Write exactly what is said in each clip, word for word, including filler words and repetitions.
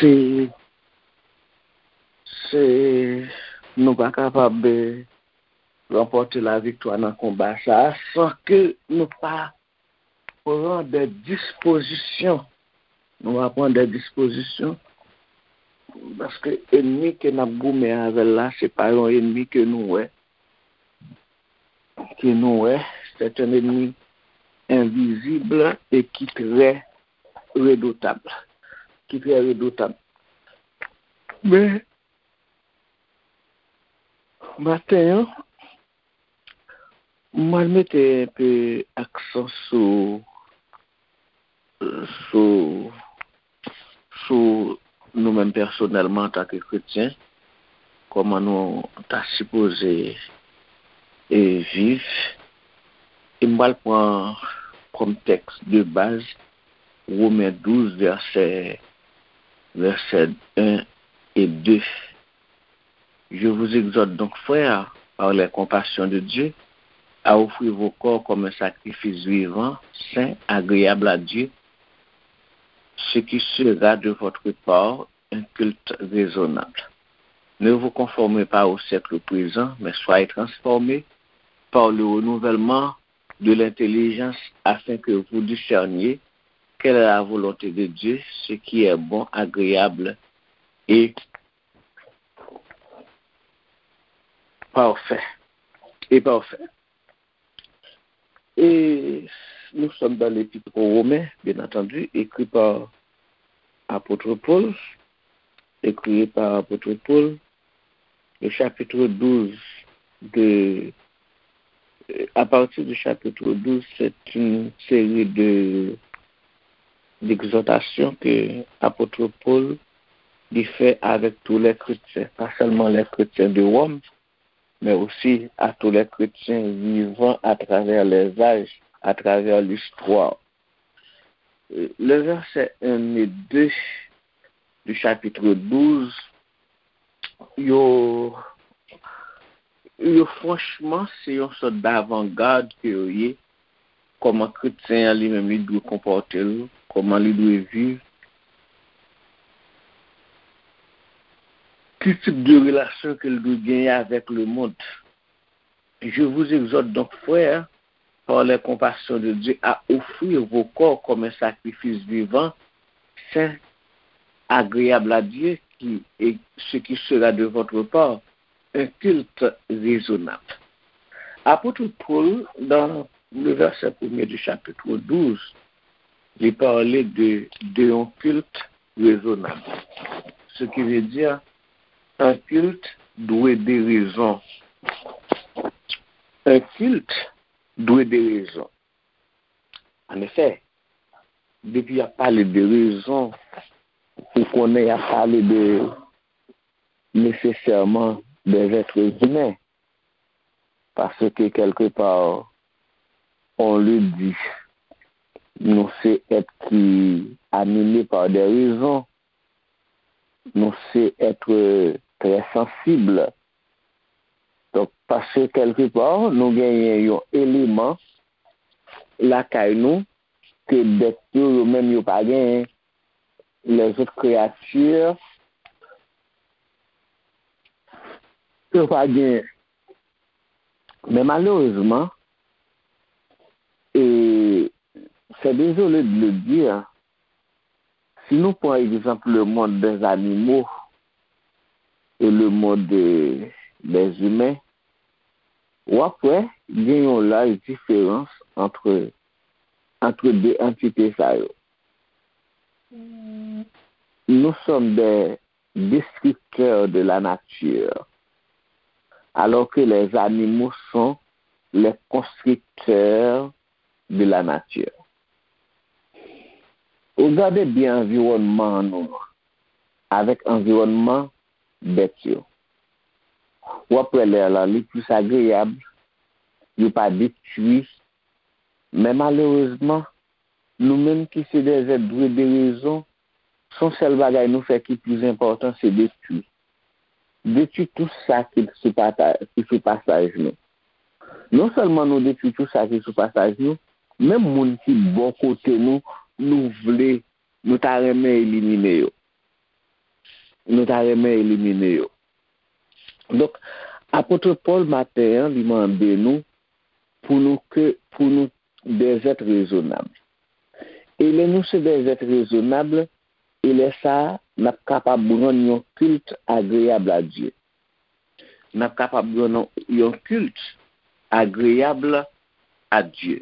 E se, nou pa kapab, eh, ranpòte laviktwa nan konba sa a san ke nou pa pran de dispozisyon. Nou va pran de dispozisyon paske ènmi ke n ap goumen avè l la, se pa yon ènmi ke nou wè, ke nou wè, c'est un ennemi invisible et qui très redoutable, ki trè redotab. Men, maten an, mwen mete enpe aksan sou, sou, sou nou menm pèsonèlman antanke kretyen, kòman nou ta sipoze e viv. E m pral pran kòm tèks de baz Women douz, vèsè, vèsè en e de. Je vous exhorte donc, frères, par les compassions de Dieu, à offrir vos corps comme un sacrifice vivant, saint, agréable à Dieu, ce qui sera de votre part un culte raisonnable. Ne vous conformez pas au siècle présent, mais soyez transformés par le renouvellement de l'intelligence, afin que vous discerniez quelle est la volonté de Dieu, ce qui est bon, agréable et parfait. Et parfait. Et nous sommes dans l'Épître aux Romains, bien entendu, écrit par apôtre Paul, écrit par apôtre Paul, le chapitre douze de, à partir du chapitre douze, c'est une série de, d'exhortations que apôtre Paul il fait avec tous les chrétiens, pas seulement les chrétiens de Rome, mais aussi à tous les chrétiens vivant à travers les âges, à travers l'histoire. Le verset un et deux du chapitre douze, yo, yo franchman, se yon sòt davangad ke yo ye, kòman kretyen an li menm li dwe konpòte l, kòman li dwe viv, ki tip de relasyon ke l dwe genyen avèk lemonn. Je vous exhorte donc, frères, par les compassions de Dieu, à offrir vos corps comme un sacrifice vivant, saint, agréable à Dieu, qui est ce qui sera de votre part un culte raisonnable. Apôtre Paul, dans le verset premier du chapitre douze, li pale de, de yon kilt rezonab. Ce qui veut dire, un culte doué de raison. Un culte doué de raison. An efè, depi y ap pale de rezon, ou konnen y ap pale de, nesesèman, des êtres humains. Paske, kèlkepa, on le dit, nou se èt ki anime pa de rezon, nou se èt trè sansib. Donk, paske kèlkepa, nou genyen yon eleman lakay nou ke bèt yo, yo menm yo pa genyen. Lèzòt kreyati, yo pa genyen. Men malerezman, e c'est désolé de le dire, si nou pran egzanp le monde des animaux et le monde des, des humains, w ap wè gen yon laj diferans entre, entre de antite sa yo. Nous sommes des destructeurs de la nature, alors que les animaux sont les constructeurs de la nature. Ou gade byen anviwònman nou an avèk anviwònman bèt yo. W ap wè lè a la, li plis agreyab, yo pa detwi. Men malerezman, nou menm ki se des êtres doués de raison, se yon sèl bagay nou fè ki plis enpòtan, se detwi. Detwi tout sa ki sou pata-, ki sou pasaj nou. Non sèlman nou detwi tout sa ki sou pasaj nou, menm moun ki bò kote nou, nou vle, nou ta renmen elimine yo. nou ta renmen elimine yo. Donk, apot Pòl maten an, li mande nou pou nou ke, pou nou des êtres raisonnables. E lè nou se des êtres raisonnables, e lè sa a, n ap kapab rann yon kilt agreyab a Dye. N ap kapab rann yon kilt agreyab a Dye.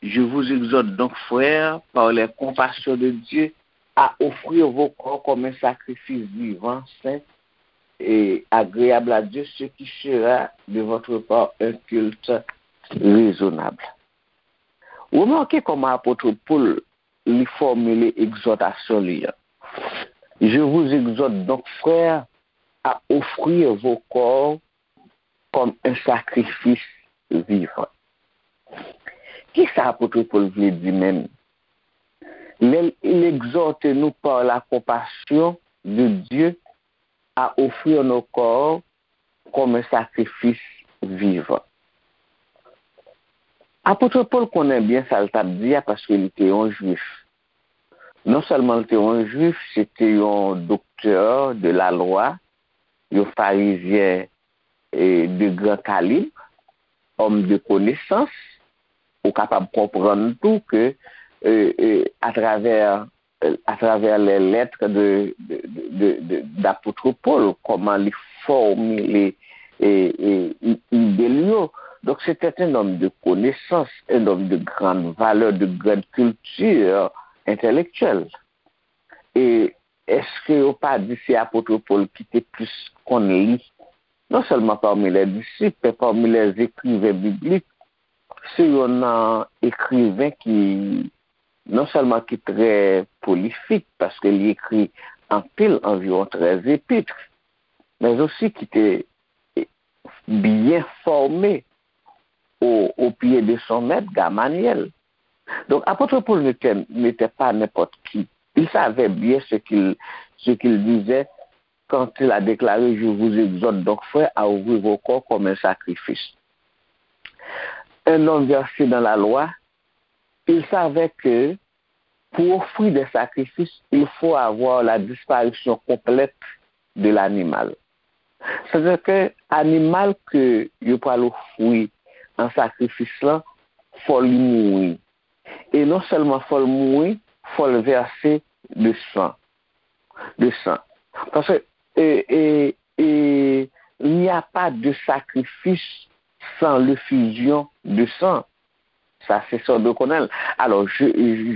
Je vous exhorte donc, frères, par les compassions de Dieu, à offrir vos corps comme un sacrifice vivant, saint et agréable à Dieu, ce qui sera de votre part un culte raisonnable. Remake kòman apot Pòl li fòmile egzòtasyon li an. Je vous exhorte donc, frères, à offrir vos corps comme un sacrifice vivant. Kisa apot Pòl vle di menm? Lè l egzòte nou par la compassion de Dieu à offrir nos corps comme un sacrifice vivant. Apot Pòl konnen byen sa l t ap di a paske li te yon jwif. Non sèlman l te yon jwif, se te yon doktè de la lwa, yon farizyen e de gran kalib, homme de connaissance, ou kapab konprann tou ke e, e, atravè atravers les lettres de, de, de, de, d'apôtre Paul, kòman li fòmile e, e, i- ide l yo. Donc, c'était un homme de connaissance, un homme de grande valeur, de grande culture intellectuelle. E èske yo pa di se apot Pòl ki te plis konn li? Non sèlman pami les disciples, men pami les écrivains bibliques, se yon nan ekriven ki non sèlman ki trè prolifik, paske li ekri anpil, anviwon trèz epit, men osi ki te byen fòme au, au pied de son maître, Gamaliel. Donk, apot Pòl n'était, n'était pas n'importe qui. Il savait bien ce qu'il, ce qu'il disait quand il a déclaré, je vous exhorte donc, frères, à offrir vos corps comme un sacrifice. Un homme versé dans la loi, il savait que pour offrir des sacrifices, il faut avoir la disparition complète de l'animal. Sètadi ke animal ke yo pral ofri an sakrifis lan, fò li mouri. E non sèlman fò l mouri, fò l vèse de san. De san. Paske e, e, e, il n'y a pas de sacrifice sans l'effusion de sang. Sa se sa w dwe konnen l. Alors, je,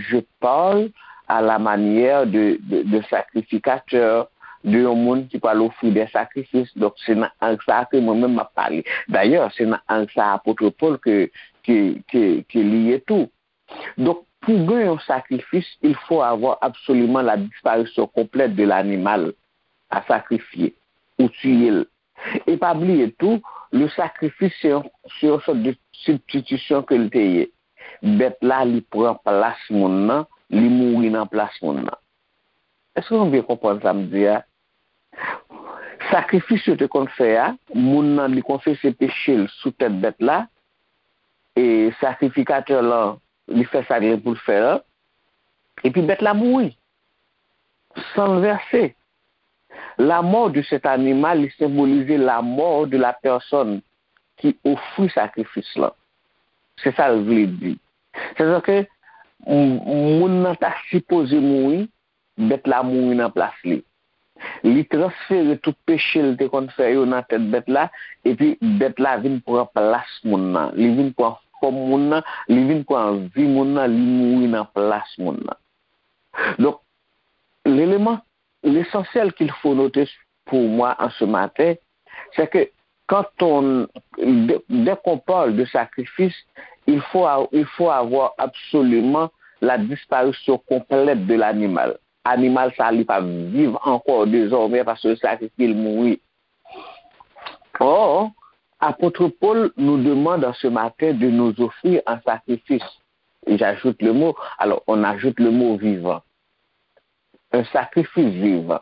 je parle à la manière de, de, de sacrificateur, de yon moun ki pral ofri des sacrifices. Donk, se nan ang sa a ke mwen menm m ap pale. Dayè, se nan ang sa a apot Pòl ke, ke, ke, ke li ye tou. Donk, pour gagner un sacrifice, il faut avoir absolument la disparition complète de l'animal à sacrifier ou tuer. E pa bliye tou, le sacrifice, se yon, se yon sòt de sibstitisyon ke l te ye. Bèt la, li pran plas moun nan, li mouri nan plas moun nan. Èske nou byen konprann sa m di a? Sakrifis yo te konn fè a, moun nan, li konfese peche l sou tèt bèt la, e sakrifikatè lan, li fè sa l gen pou l fè an, epi bèt la mouri. San l vèse. La mort de cet animal, li senbolize la mort de la personne ki ofri sakrifis lan. Se sa l vle di. Sètadi ke m- moun nan ta sipoze mouri, bèt la mouri nan plas li. Li transfere tout peche l te konn fè yo nan tèt bèt la, epi bèt la vin pran plas moun nan. Li vin pran fòm moun nan, li vin pran vi moun nan, li mouri nan plas moun nan. Donk, l'élément, l'essentiel qu'il faut noter pour moi en ce matin, c'est que quand on, dès, dès qu'on parle de sacrifice, il faut, a- il faut avoir absolument la disparition complète de l'animal. Animal sa, li pa viv ankò désormais paske sakrifye l mouri. Or, apot Pòl nous demande en ce matin de nous offrir en sacrifice. Et j'ajoute le mot, alors on ajoute le mot vivant. Un sacrifice vivant.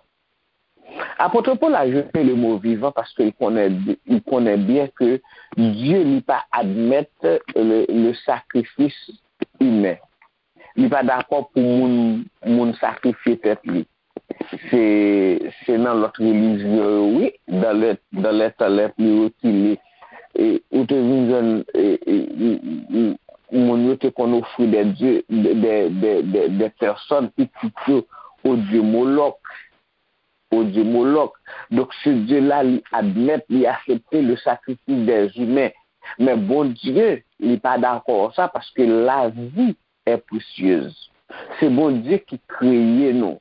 Apot Pòl ajoute le mot vivant paske li konnen, li konnen byen ke Dye li pa admèt le, le sacrifice humain. Li pa dakò pou moun, moun sakrifye tèt li. Se, se nan lòt relijyon yo, wi, dans les, dans les temps les plus reculés, e, ou te vin jwenn, e, e, e, e, moun yo te konn ofri des dieux, des, des, des, des personnes, pitit yo, au dieu Moloch, au dieu Moloch. Donk, ce Dieu-là, li admèt, li aksepte le sacrifice des humains. Men Bondye, li pa dakò sa, paske lavi est précieuse. Se Bondye ki kreye nou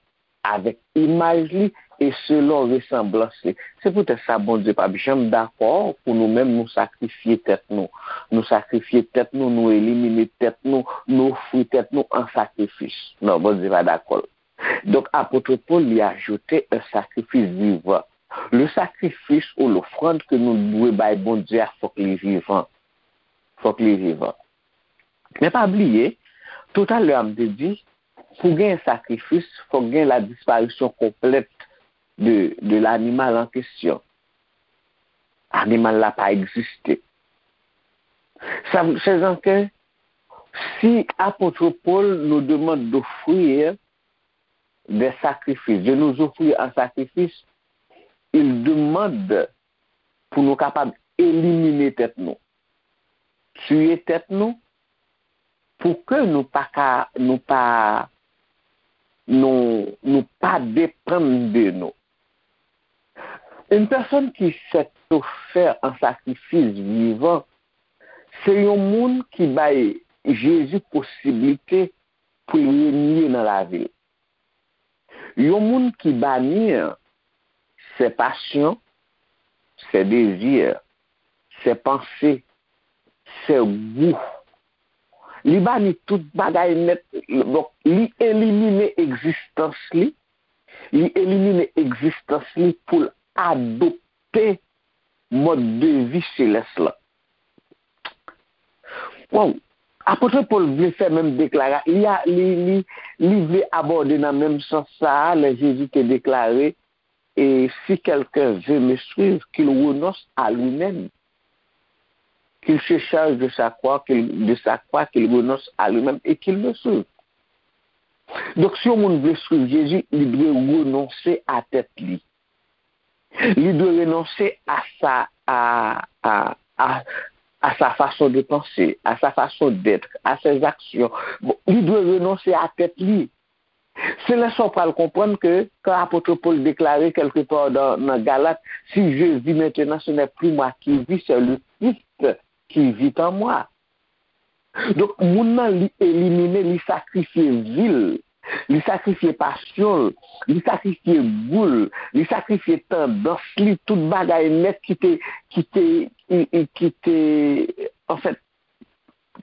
avèk imaj li e selon resanblans li. Se poutèt sa Bondye p ap janm dakò pou nou menm nou sakrifye tèt nou. Nou sakrifye tèt nou, nou elimine tèt nou, nou ofri tèt nou an sakrifis. Non, Bondye pa dakò. Donk, apot Pòl, li ajoute un sacrifice vivant. Le sacrifice ou l'offrande ke nou dwe bay Bondye a, fòk li vivan. Fòk li vivan. Men pa bliye, toutalè a m te di, pou gen sakrifis, fòk gen la disparition complète de, de l'animal en question. Animal la pa egziste. Sa, chè zanke, si apot Pòl nous demande d'offrir des sacrifices, de nous offrir en sacrifice, il demande pou nou kapab elimine tèt nou, tiye tèt nou, pou ke nou pa ka, nou pa, nou, nou pa depann de nou. Une personne qui s'est offert en sacrifice vivant, se yon moun ki bay Jezi posiblite pou l renye nan lavi l. Yon moun ki bani ses passions, ses désirs, ses pensées, ses goûts. Li bani tout bagay nèt. Donk, li elimine egzistans li. Li elimine egzistans li pou l adopte mòd de vi selès la. Waw! Apot Pòl vle fè menm deklara, li, a, li, li, li vle abòde nan menm sans sa a, lè Jezi te deklare, et si quelqu'un veut me suivre, qu'il renonce à lui-même, qu'il se charge de sa croix, qu'il, de sa croix, qu'il renonce à lui-même et qu'il me suive. Donk, si yon moun vle swiv Jezi, li dwe renonse a tèt li. Li dwe renonse à sa, à, à, à, à sa façon de penser, à sa façon d'être, à ses actions. Bon, li dwe renonse a tèt li. Se lè sa w pral konprann ke, kan apot Pòl deklare kèlke pa nan, nan Galat, si je vis maintenant, ce n'est plus moi qui vis, c'est le Christ qui vit en moi. Donk, moun nan, li elimine, li sakrifye vi l, li sakrifye pasyon l, li sakrifye gou l, li sakrifye tandans li, tout bagay nèt ki te, ki te, ki, ki, ki te, anfèt,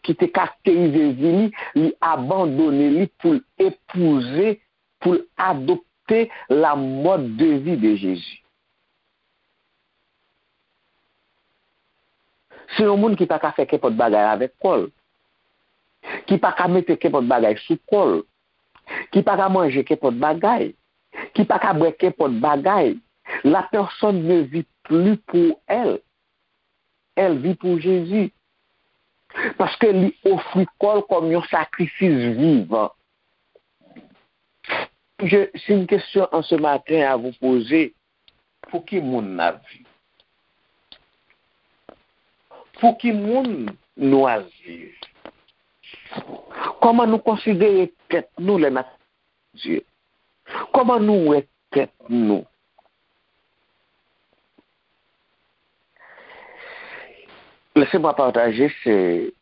ki te karakterize vi li, li abandone li pou l epouze, pou l adopte la mode de vie de Jésus. Se yon moun ki pa ka fè kenpòt bagay avèk kò l, ki pa ka mete kenpòt bagay sou kò l, ki pa ka manje kenpòt bagay, ki pa ka bwè kenpòt bagay. La personne ne vit plus pour elle. Elle vit pour Jésus. Paske li ofri kò l kòm yon sakrifis vivan. Je, si une question en ce matin à vous poser, pou ki moun n ap viv? Pou ki moun nou ap viv? Kòman nou konsidere tèt nou lè n ap Dye? Kòman nou wè tèt nou? Laissez-moi partager, c'est,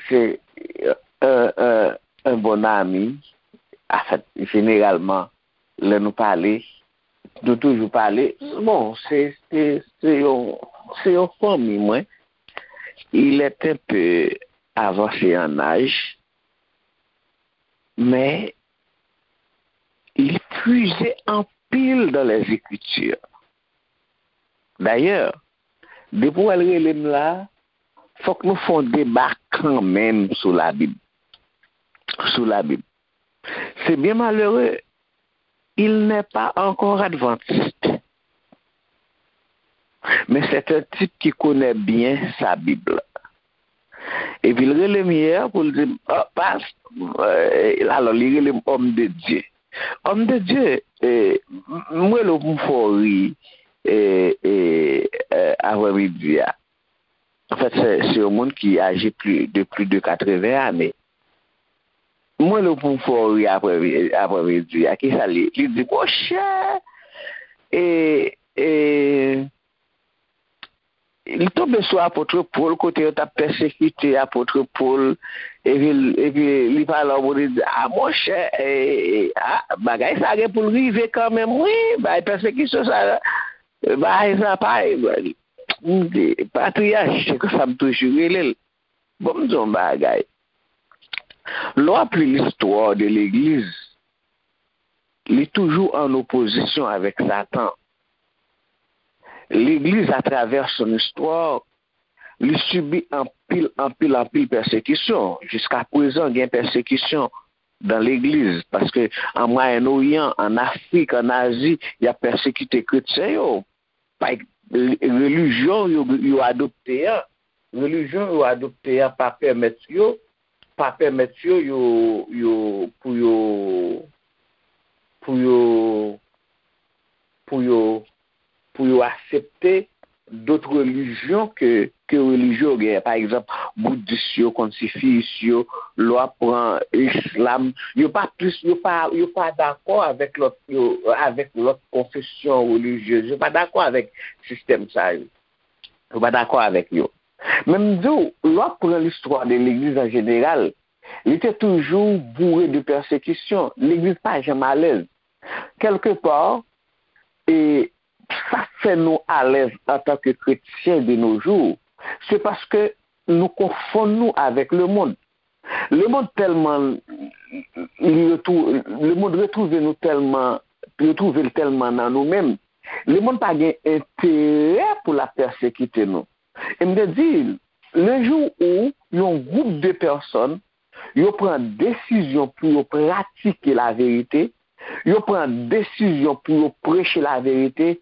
c'est un, un, un bon ami. An fèt, jeneralman, lè nou pale, nou toujou pale. Bon, se, se, se yon, se yon fanmi mwen. Il est un peu avancé en âge, men li puize anpil dans les Écritures. Dayè, depi w al rele m la, fòk nou fè yon deba kanmenm sou Labib. Sou Labib. C'est bien malheureux, il n'est pas encore adventiste. Mais c'est un type qui connaît bien sa Bib. Epi l rele m yè pou l di m, "Ah, pas-, eh," alò, li rele m homme de Dieu. Homme de Dieu, e, m- m rele w pou m fè w ri, e, e, e, aprèmidi a. Anfèt, se se yon moun ki aji pli de pli de katreven ane. M rele w pou m fè w ri aprè aprèmidi a. Kisa li? Li di, monchè, e, e, li tonbe sou apot Pòl, kote yo t ap pèsekite apot Pòl, epi, epi li pale yon moun, li di, a, monchè, e, e, a, bagay sa gen pou l rive kanmenm, wi, bay pèsekisyon sa, bagay sa pa, m di, patriyach, se konsa m toujou rele l. Bon, m di yon bagay. Lè w ap li listwa de legliz, li toujou an opozisyon avèk Satan. Legliz, atravè son istwa, li sibi anpil, anpil, anpil pèsekisyon. Jiska prezan, gen pèsekisyon dan legliz, paske an Mwayen Oryan, an Afrik, an Azi, y ap pèsekite kretyen yo. Pa, relijyon yo, yo adopte an, relijyon yo adopte an pa pèmèt yo, pa pèmèt yo, yo, yo, pou yo, pou yo, pou yo, pou yo aksepte dòt relijyon ke, ke relijyon yo genyen. Pa egzanp, boudis yo, konsifiyis yo, lè w ap pran islam, yo pa plis, yo pa, yo pa dakò avèk lòt, yo, avèk lòt konfesyon relijyez. Yo pa dakò avèk sistèm sa yo. Yo pa dakò avèk yo. Men m di w, lè w ap pran listwa de legliz an jeneral, li te toujou boure de pèsekisyon. Legliz pa janm alèz. Kèlkepa, e sa k fè nou alèz antanke kretyen de nos jours, se paske nou konfonn nou avèk lemonn. Lemonn tèlman li retou, lemonn retwouve nou tèlman, retwouve l tèlman nan nou menm. Lemonn pa gen enterè pou l ap pèsekite nou. E m te di, le jou où yon gwoup de pèsòn, yo pran desizyon pou yo pratike laverite, yo pran desizyon pou yo preche laverite,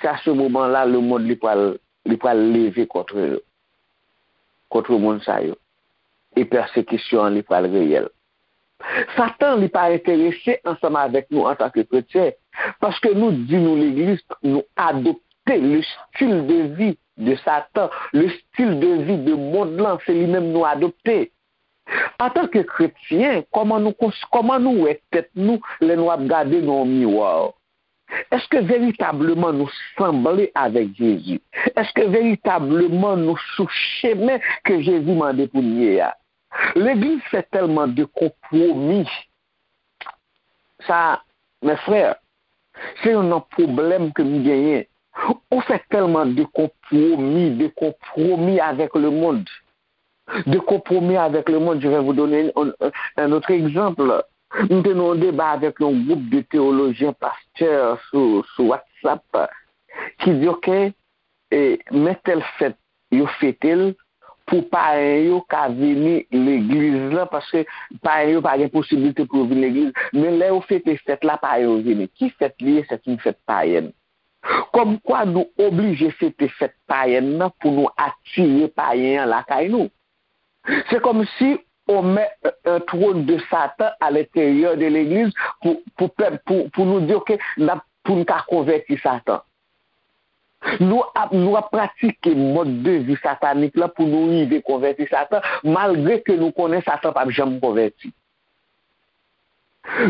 se a se moman la lemonn li pral, li pral leve kont yo, kont moun sa yo. E pèsekisyon an li pral reyèl. Satan, li pa enterese ansanm avèk nou antanke kretyen, paske nou di nou legliz, nou adopte le style de vie de Satan, le style de vie de mond lan, se li menm nou adopte. Antanke kretyen, kòman nou kons, kòman nou wè tèt nou lè nou ap gade nan yon miwa? Èske veritableman nou sanble avèk Jezi? Èske veritableman nou sou chemen ke Jezi mande pou n ye a? Legliz fè tèlman de konpwomi. Sa, mes frères, se youn nan pwoblèm ke m genyen. Ou fè tèlman de konpwomi, de konpwomi avèk lemonn, de konpwomi avèk lemonn. Je vais vous donner un, un, un autre exemple. M te nan yon deba avèk yon gwoup de teyolojyen, pastè sou, sou WhatsApp ki di, oke, e, men tèl fèt, yo fete l pou payen yo ka vini legliz lan, paske payen yo pa gen posiblite pou yo vin legliz. Men lè yo fete fèt la, payen yo vini. Ki fèt li ye? Se yon fèt payèn. Kòmkwa nou oblije fete fèt payèn nan pou nou atire payen an lakay nou. Se kòmsi on met un trône de Satan à l'intérieur de legliz pou, pou pèp, pou, pou nou di, oke, n ap, pou n ka konvèti Satan. Nou ap, nou ap pratike mòd de vi satanik la pou nou rive konvèti Satan, malgre ke nou konnen Satan p ap janm konvèti.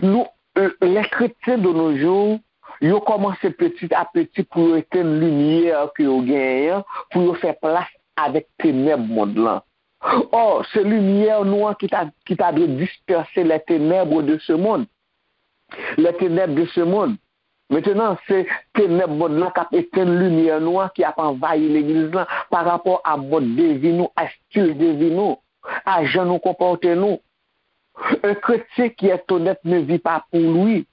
Nou, les chrétiens de nos jours, yo kòmanse petit à petit pou yo etenn limyè ke yo genyen an, pou yo fè plas avèk tenèb mond lan. Ò, se limyè nou an ki ta, ki ta dwe dispèse les ténèbres de ce monde. Les ténèbres de ce monde. Mentenan, se tenèb mond lan k ap etenn limyè nou an, ki ap anvayi legliz lan pa rapò a mòd de vi nou, a stil de vi nou, a jan nou konpòte nou. Un chrétien qui est honnête ne vit pas pour lui.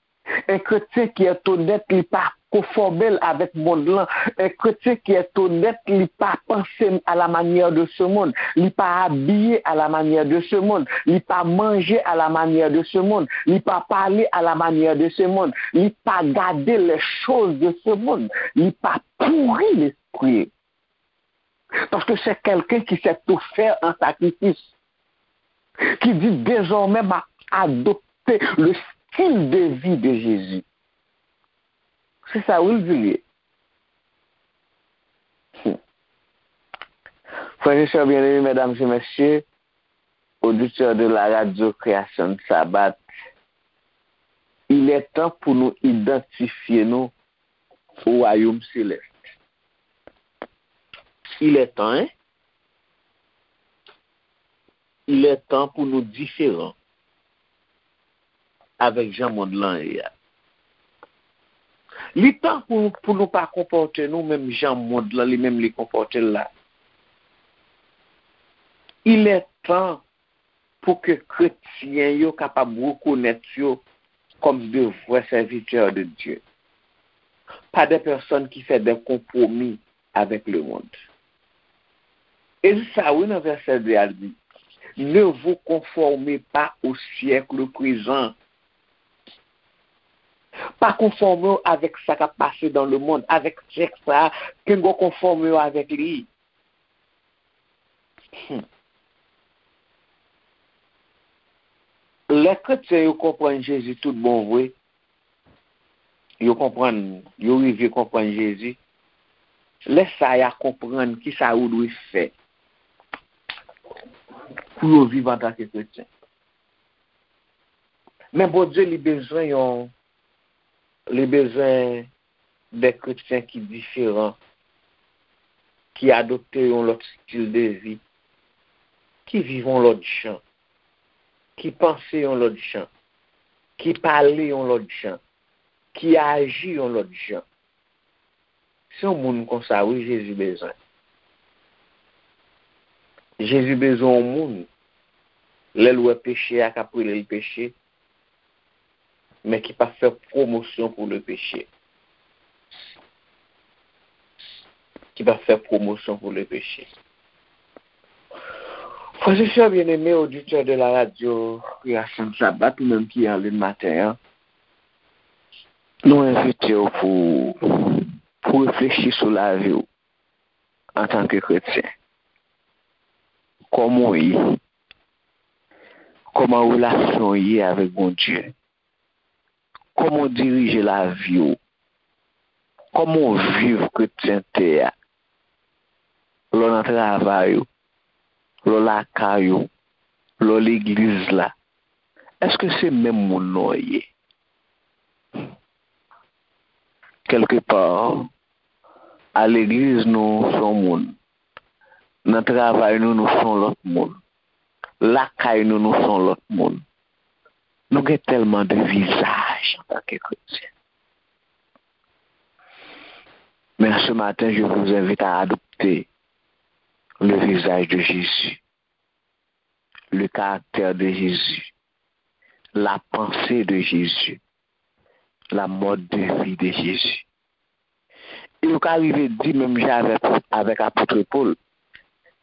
Un chrétien qui est honnête, li pa konfòme l avèk mond lan. Un chrétien qui est honnête, li pa panse à la manière de ce monde. Li pa abiye à la manière de ce monde. Li pa manje à la manière de ce monde. Li pa pale à la manière de ce monde. Li pa gade les choses de ce monde. Li pa pouri lespri. Paske se kèlken ki sèt ofè an sakrifis, ki di, dezòmè, m ap adopte le stil de vi de Jezi. Se sa wi l di l ye. Hmm. Frè e sè byeneme, medam e mesye, oditè de la radyo Kreyasyon Sabat, il est temps pou nou idantifye nou o wayòm selès. Il est temps, hein? Il est temps pou nou diferan avèk jan mond lan ye a. Li tan pou, pou nou pa konpòte nou menm jan mond lan li menm li konpòte l la. Il est temps pou ke kretyen yo kapab rekonèt yo kòm de vrè sèvitè de Dye, pa de pèsòn ki fè de konpwomi avèk lemonn. E sa wi nan vèsè de a l di, ne vous conformez pas au siècle présent. Pa konfòme w avèk sa k ap pase dans le monde, avèk syèk sa a, ke w konfòme w avèk li. Hmm. Lè kretyen yo konprann Jezi tout bon vre, yo konprann, yo rive konprann Jezi, lè sa a y a konprann kisa yo dwe fè pou yo viv antanke kretyen. Men Bondye li bezwen yon, li bezwen de kretyen ki diferan, ki adopte yon lòt stil de vi, ki viv yon lòt jan, ki panse yon lòt jan, ki pale yon lòt jan, ki aji yon lòt jan. Se yon moun konsa wi Jezi bezwen. Jezi bezwen yon moun, lè l wè peche a k ap rele l peche, men ki p ap fè pwomosyon pou le peche. Ki p ap fè pwomosyon pou le peche. Frè e sè byeneme, oditè de la radyo Kreyasyon Sabat, ou menm ki an liy maten an, nou envite w pou, pou reflechi sou lavi w antanke kretyen. Kòman w ye? Kòman relasyon w ye avèk Bondye? Kòman w dirije lavi w? Kòman w viv kretyente a? Lè w nan travay ou, lè w lakay ou, lè w legliz la, èske se menm moun nan w ye? Kèlkepa, a legliz nou se yon moun, nan travay nou, nou se yon lòt moun, lakay nou, nou se yon lòt moun. Nou gen tèlman de vizaj antanke kretyen. Mais ce matin, je vous invite à adopter le visage de Jésus, le caractère de Jésus, la pensée de Jésus, la mode de vie de Jésus. E yo ka rive di menm jan avèk, avèk apot Pòl,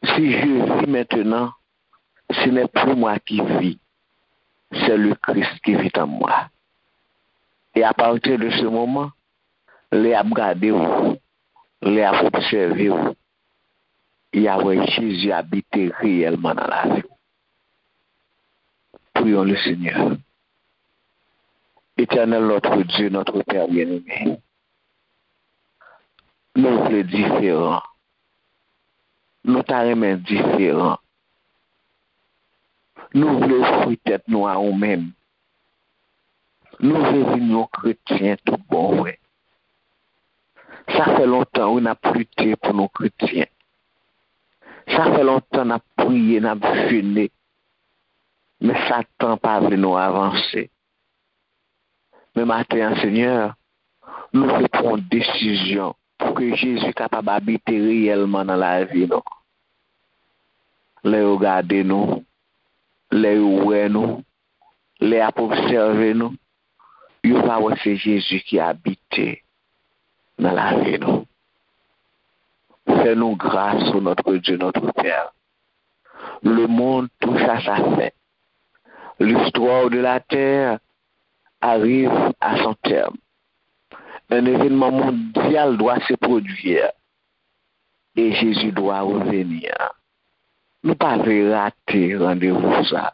si je vis maintenant, ce n'est plus moi qui vis, c'est le Christ qui vit en moi. E a pati de se moman, lè y ap gade w, lè y ap obsève w, y a wè Jezi abite reyèlman nan lavi w. Prions le Seigneur. Éternel notre Dieu, notre Père bien-aimé, nou vle diferan. Nou ta renmen diferan. Nou vle ofri tèt nou a ou menm. Nou vle vin yon kretyen tout bon vre. Sa fè lontan wi n ap lite pou nou kretyen. Sa fè lontan n ap priye, n ap jene. Men Satan pa vle nou avanse. Men maten an, Senyè, nou vle pran yon desizyon pou ke Jezi kapab abite reyèlman nan lavi nou. Lè yo gade nou, lè yo wè nou, lè y ap obsève nou, yo va wè se Jezi ki abite nan lavi nou. Fais-nous grâce, ô notre Dieu, notre Père. Le monde touche à sa fin. L'histoire de la terre arrive à son terme. Un événement mondial doit se produire et Jésus doit revenir. Nou pa vle rate randevou sa.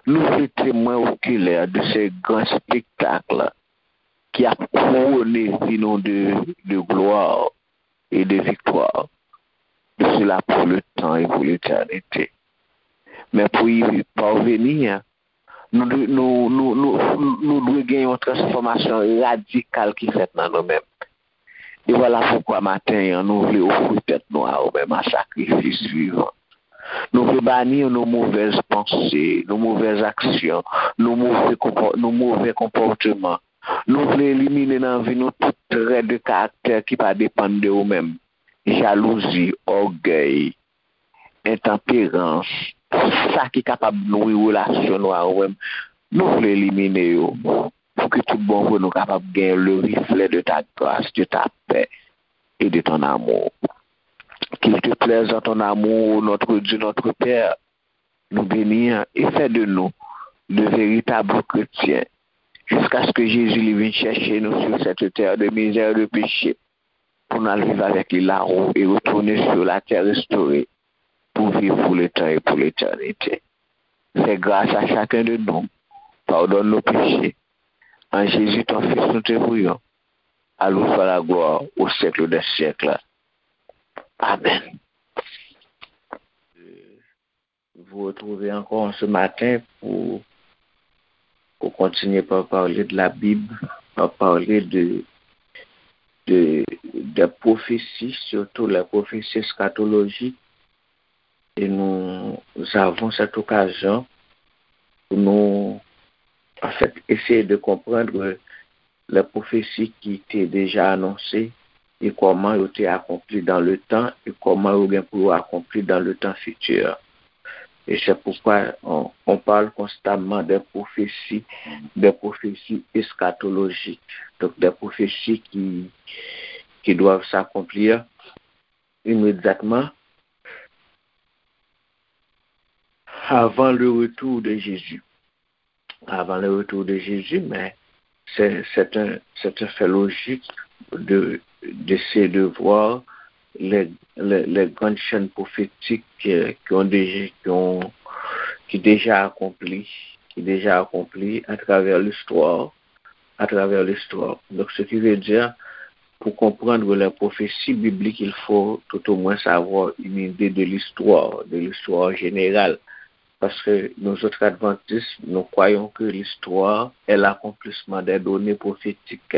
Nou vle temwen okilè de se gran espektak ki ap kouwone vi nou de, de glwa e de viktwa, de sila pou letan e pou letènite. Men pou y parveni, nou, dwe- nou, nou, nou, nou dwe gen yon transfòmasyon radikal ki fèt nan nou menm. E vwala poukwa maten an, nou vle ofri tèt nou a ou menm an sakrifis vivan. Nou vle bani nou movèz panse, nou movèz aksyon, nou move konpò- nou move konpòteman. Nou vle elimine nan vi nou tout trè de karaktè ki pa depann de ou menm. Jalouzi, ògèy, entanperans, sa ki kapab nwi relasyon nou a ou menm. Nou vle elimine yo pou ke tout bon vre nou kapab gen le reflet de ta grâce, de ta paix et de ton amour. Qu'il te plaise dans ton amour, notre Dieu, notre Père, nous bénir et faire de nous de véritables chrétiens jusqu'à ce que Jésus li vin chèche nou sur cette terre de misère et de péché pour nous vivre avec lui là-haut et retourner sur la terre restaurée pour vivre pour le temps et pour l'éternité. Fais grâce à chacun de nous. Pardonne nos péchés. En Jésus, ton Fils, nous te prions. À lui soit la gloire au siècle des siècles. Amen. Vous retrouver encore ce matin pour, pour continuer par parler de la Bible, par parler de, de, des prophéties, surtout les prophéties eschatologiques. Et nous avons cette occasion pour nous, en fait, essayer de comprendre les prophéties qui étaient déjà annoncées et comment elles étaient accomplies dans le temps et comment elles vont akonpli dans le temps futur. Et c'est pourquoi on, on parle constamment des prophéties, des prophéties eschatologiques, donc des prophéties qui, qui doivent s'accomplir immédiatement avant le retour de Jésus. Avant le retour de Jésus, mais c'est, c'est un, c'est un fait logique de, d'essayer de voir les, les, les grandes chaînes prophétiques euh, qui ont déjà, qui ont, qui déjà accompli, qui déjà accompli à travers l'histoire, à travers l'histoire. Donc, ce qui veut dire, pour comprendre les prophéties bibliques, il faut tout au moins avoir une idée de l'histoire, de l'histoire générale. Parce que nous autres adventistes, nous croyons que l'histoire est l'accomplissement des données prophétiques.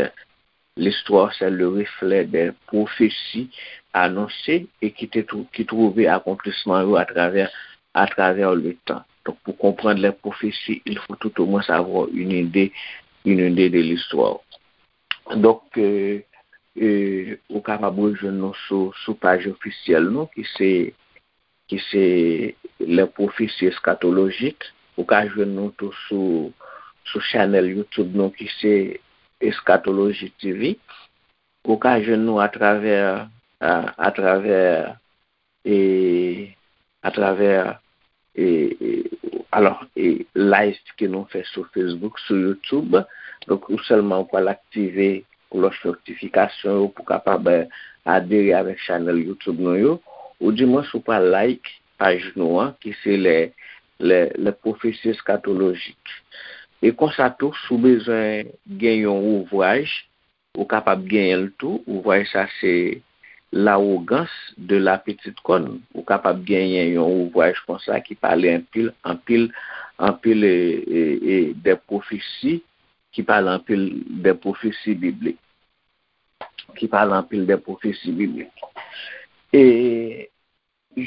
L'histoire, c'est le reflet des prophéties annoncées et qui, te, qui trouvaient accomplissement à travers, à travers le temps. Donc, pour comprendre les prophéties, il faut tout au moins avoir une idée, une idée de l'histoire. Donk, euh, euh, ou kapab rejwenn nou sou, sou paj ofisyèl nou ki se, ki se Les Prophéties Eschatologiques. Ou ka jwenn nou tou sou, sou chanèl YouTube nou ki se Eschatologie T V. Ou ka jwenn nou atravè, a, atravè e atravè e, e, alò, e live ke nou fè sou Facebook, sou YouTube. Donk, ou sèlman ou pral aktive klòch notifikasyon yo pou kapab eh, adere avèk chanèl YouTube nou yo. Ou di mwen si w pral like paj nou an, ki se les, les, les prophéties eschatologiques. E konsa tou, si w bezwen gen yon ouvraj, ou kapab genyen l tou. Ouvraj sa se L'arrogance de la petite corne. Ou kapab genyen yon ouvraj konsa ki pale anpil, anpil, anpil e, e, e de pwofesi, ki pale anpil de pwofesi biblik. Ki pale anpil de pwofesi biblik. E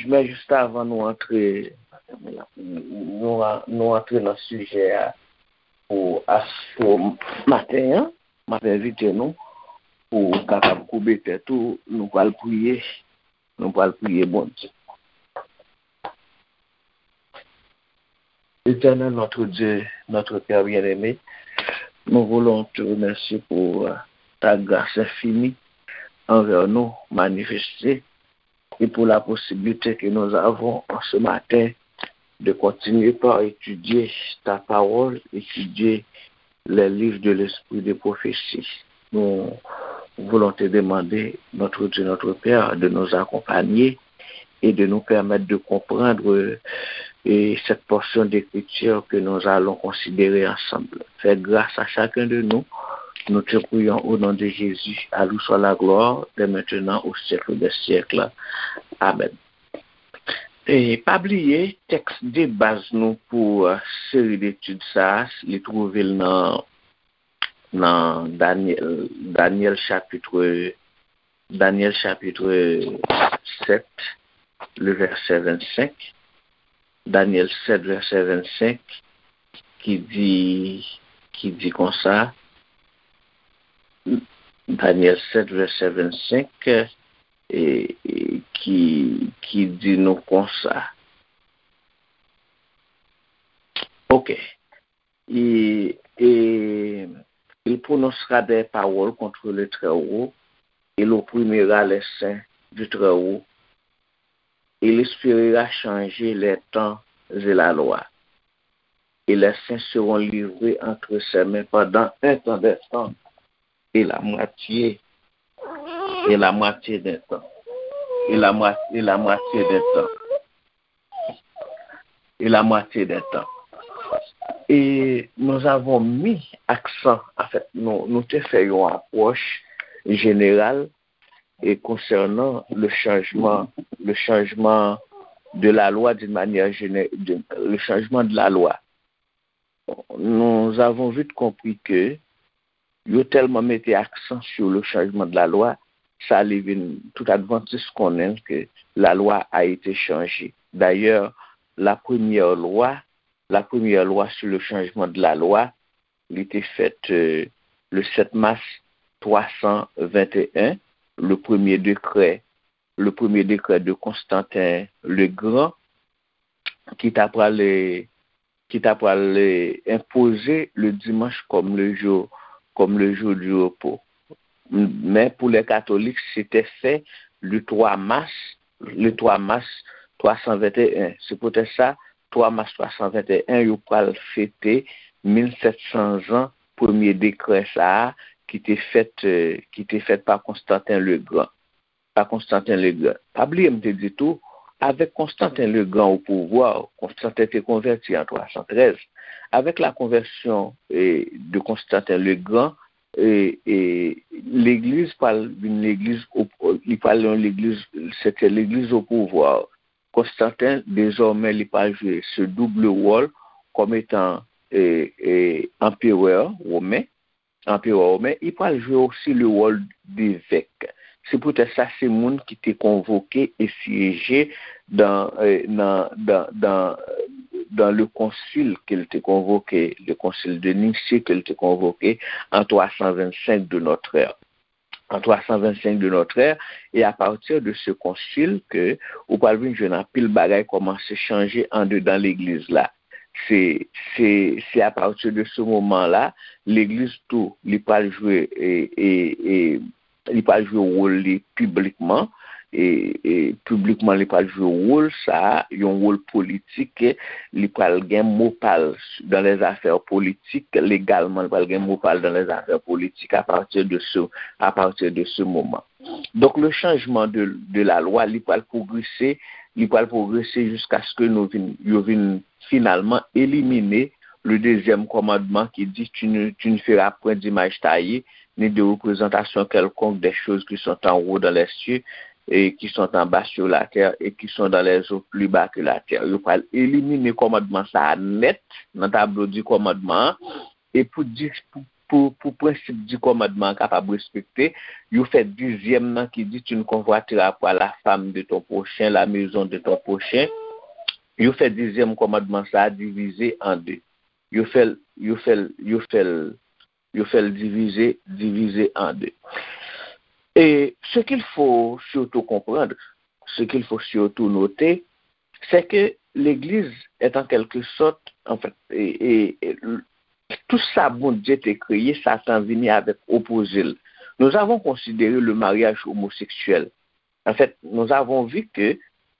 Men jis avan nou antre, nou, nou antre nan sijè a pou astwo maten an, m ap envite nou pou w kapab koube tèt ou, nou pral priye, nou pral priye Bondye. Éternel notre Dieu, notre Père bien-aimé, nous voulons te remercier pour euh, ta grâce infinie envers nous manifestée et pour la possibilité que nous avons en ce matin de continuer par étudier ta parole, étudier les livres de l'esprit de prophétie. Nous voulons te demander, notre Dieu, notre Père, de nous accompagner et de nous permettre de comprendre et cette portion d'écriture que nous allons considérer ensemble. Fais grâce à chacun de nous. Nous te prions au nom de Jésus, à lui soit la gloire, dès maintenant, au siècle des siècles. Amen. E pa bliye, tèks de baz nou pou euh, seri detid sa a, li twouve l nan, nan Danyèl, Danyèl chapit, Danyèl chapit sèt, le vèsè vennsenk. Danyèl sèt, vèsè vennsenk, ki di, ki di konsa, Danyèl sèt, vèsè vennsenk, e, e, ki, ki di nou konsa. Ok. Et, et il prononcera des paroles contre le Très-Haut, et il opprimera les saints du Très-Haut, et il espérera changer les temps et la loi. Et les saints seront livrés entre ses mains pendant un temps des temps, et la moitié, et la moitié d'un temps, et la, moi- et la moitié d'un temps, et la moitié d'un temps. Et nous avons mis accent, en fait, nous, nous te fè yon apwòch jeneral et concernant le changement, le changement de la loi d'une manière générale, le changement de la loi. Nous avons vite compris que yo tèlman mete aksan sur le changement de la loi, sa li vin tout advantis konnen que la loi a été changée. D'ailleurs, la première loi, la première loi sur le changement de la loi, li te fèt euh, le sept mars trois cent vingt et un, le premier décret, le premier décret de Constantin le Grand, ki ta pral, ki ta pral enpoze le dimanche comme le jour, comme le jour du repos. Men pou lè katolik, se te fè le twa mas, le twa mas twa san venteyen. Se poutèt sa, twa mas twa san venteyen, yo pral fete mil sèt san zan premye dekrè sa a ki te fèt, euh, ki te fèt pa Konstantin le Gran. Pa Konstantin le Gran. Pa bliye m te di tou, avèk Konstantin le Gran o pouvwa, Konstantin te konvèti an twa san trèz. Avèk la konvèsyon eh, de Konstantin le Gran, eh, eh, legliz pral vin legliz, o- li pral yon legliz, se te legliz o pouvwa. Konstantin, dezòmè, li pral jwe se double wòl kòm etan eh, eh, anperè women, anperè women, li pral jwe osi le wòl devèk. Se poutèt sa, se moun ki te konvoke e syeje dan, eh, nan, dan, dan, dan le konsil ke l te konvoke, le konsil de Nicée ke l te konvoke an twa san vennsenk de notre ère. An twa san vennsenk de notre ère, e apati de se konsil ke ou pral vin jwenn anpil bagay kòmanse chanje andedan legliz la. Se, se, se apati de se moman la, legliz tou, li pral jwe, e, e, e, li pral jwe wòl li piblikman, e, e piblikman li pral jwe wòl sa, yon wòl politik, li pral gen mo pa l dans les affaires politiques, légalement, li pral gen mo pa l dans les affaires politiques à partir de ce, à partir de ce moment. Donc, le changement de, de la loi, li pral pwogrese, li pral pwogrese jiskaske nou vin, yo vin finalman elimine le deuxième commandement qui dit, tu ne, tu ne feras point d'image taillée, ni de représentation quelconque des choses qui sont en haut dans les cieux, et qui sont en bas sur la terre, et qui sont dans les eaux plus bas que la terre. Yo pral elimine kòmandman sa a nèt nan tablo di kòmandman an, e pou, dis- pou, pou, pou prensip di kòmandman an kapab respekte, yo fè dizyèm nan ki di, tu ne convoiteras pas la femme de ton prochain, la maison de ton prochain. Yo fè dizyèm kòmandman sa a divize an de. Yo fè l, yo fè l, yo fè l, yo fè l divize, divize an de. Et ce qu'il faut surtout comprendre, ce qu'il faut surtout noter, c'est que l'Église est en quelque sorte, en fait, et, et, et tout sa Bondye te kreye, Satan vini avèk opoze l. Nous avons considéré le mariage homosexuel. En fait, nous avons vu que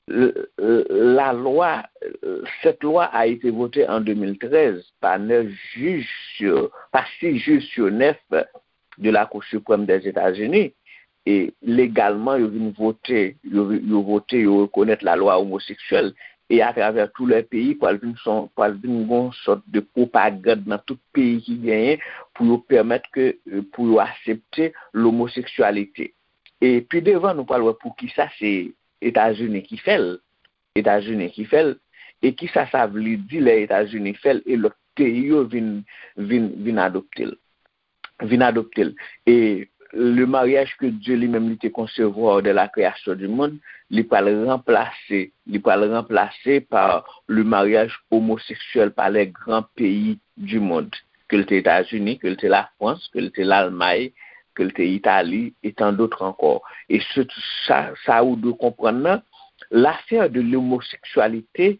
euh, euh, la loi, euh, cette loi a été votée en deux mille treize par neuf juges sur, par six juges sur neuf de la Cour suprême des États-Unis. E legalman, yo vin vote, yo, yo vote, yo rekonèt la lwa omoseksyèl. e atravè tou lè peyi, pral vin son, pral vin gon sòt de pwopagann nan tout peyi ki genyen pou yo pèmèt ke, pou yo aksepte lomoseksyalite. E pi devan, nou pral wè pou ki sa se Etazini ki fè l, Etazini ki fè l, e ki sa sa vle di lè Etazini fè l e lòt peyi yo vin, vin, vin adopte l. Vin adopte l. E le mariage que Dieu lui-même li te concevoir dès la création du monde, li pral ranplase, li pral ranplase par le mariage homosexuel par les grands pays du monde, ke l te Etazini, ke l te Lafrans, ke l te Lalmay, ke l te Itali, et tant d'autres encore. E se sa, sa ou dwe konprann nan, l'affaire de l'homosexualité,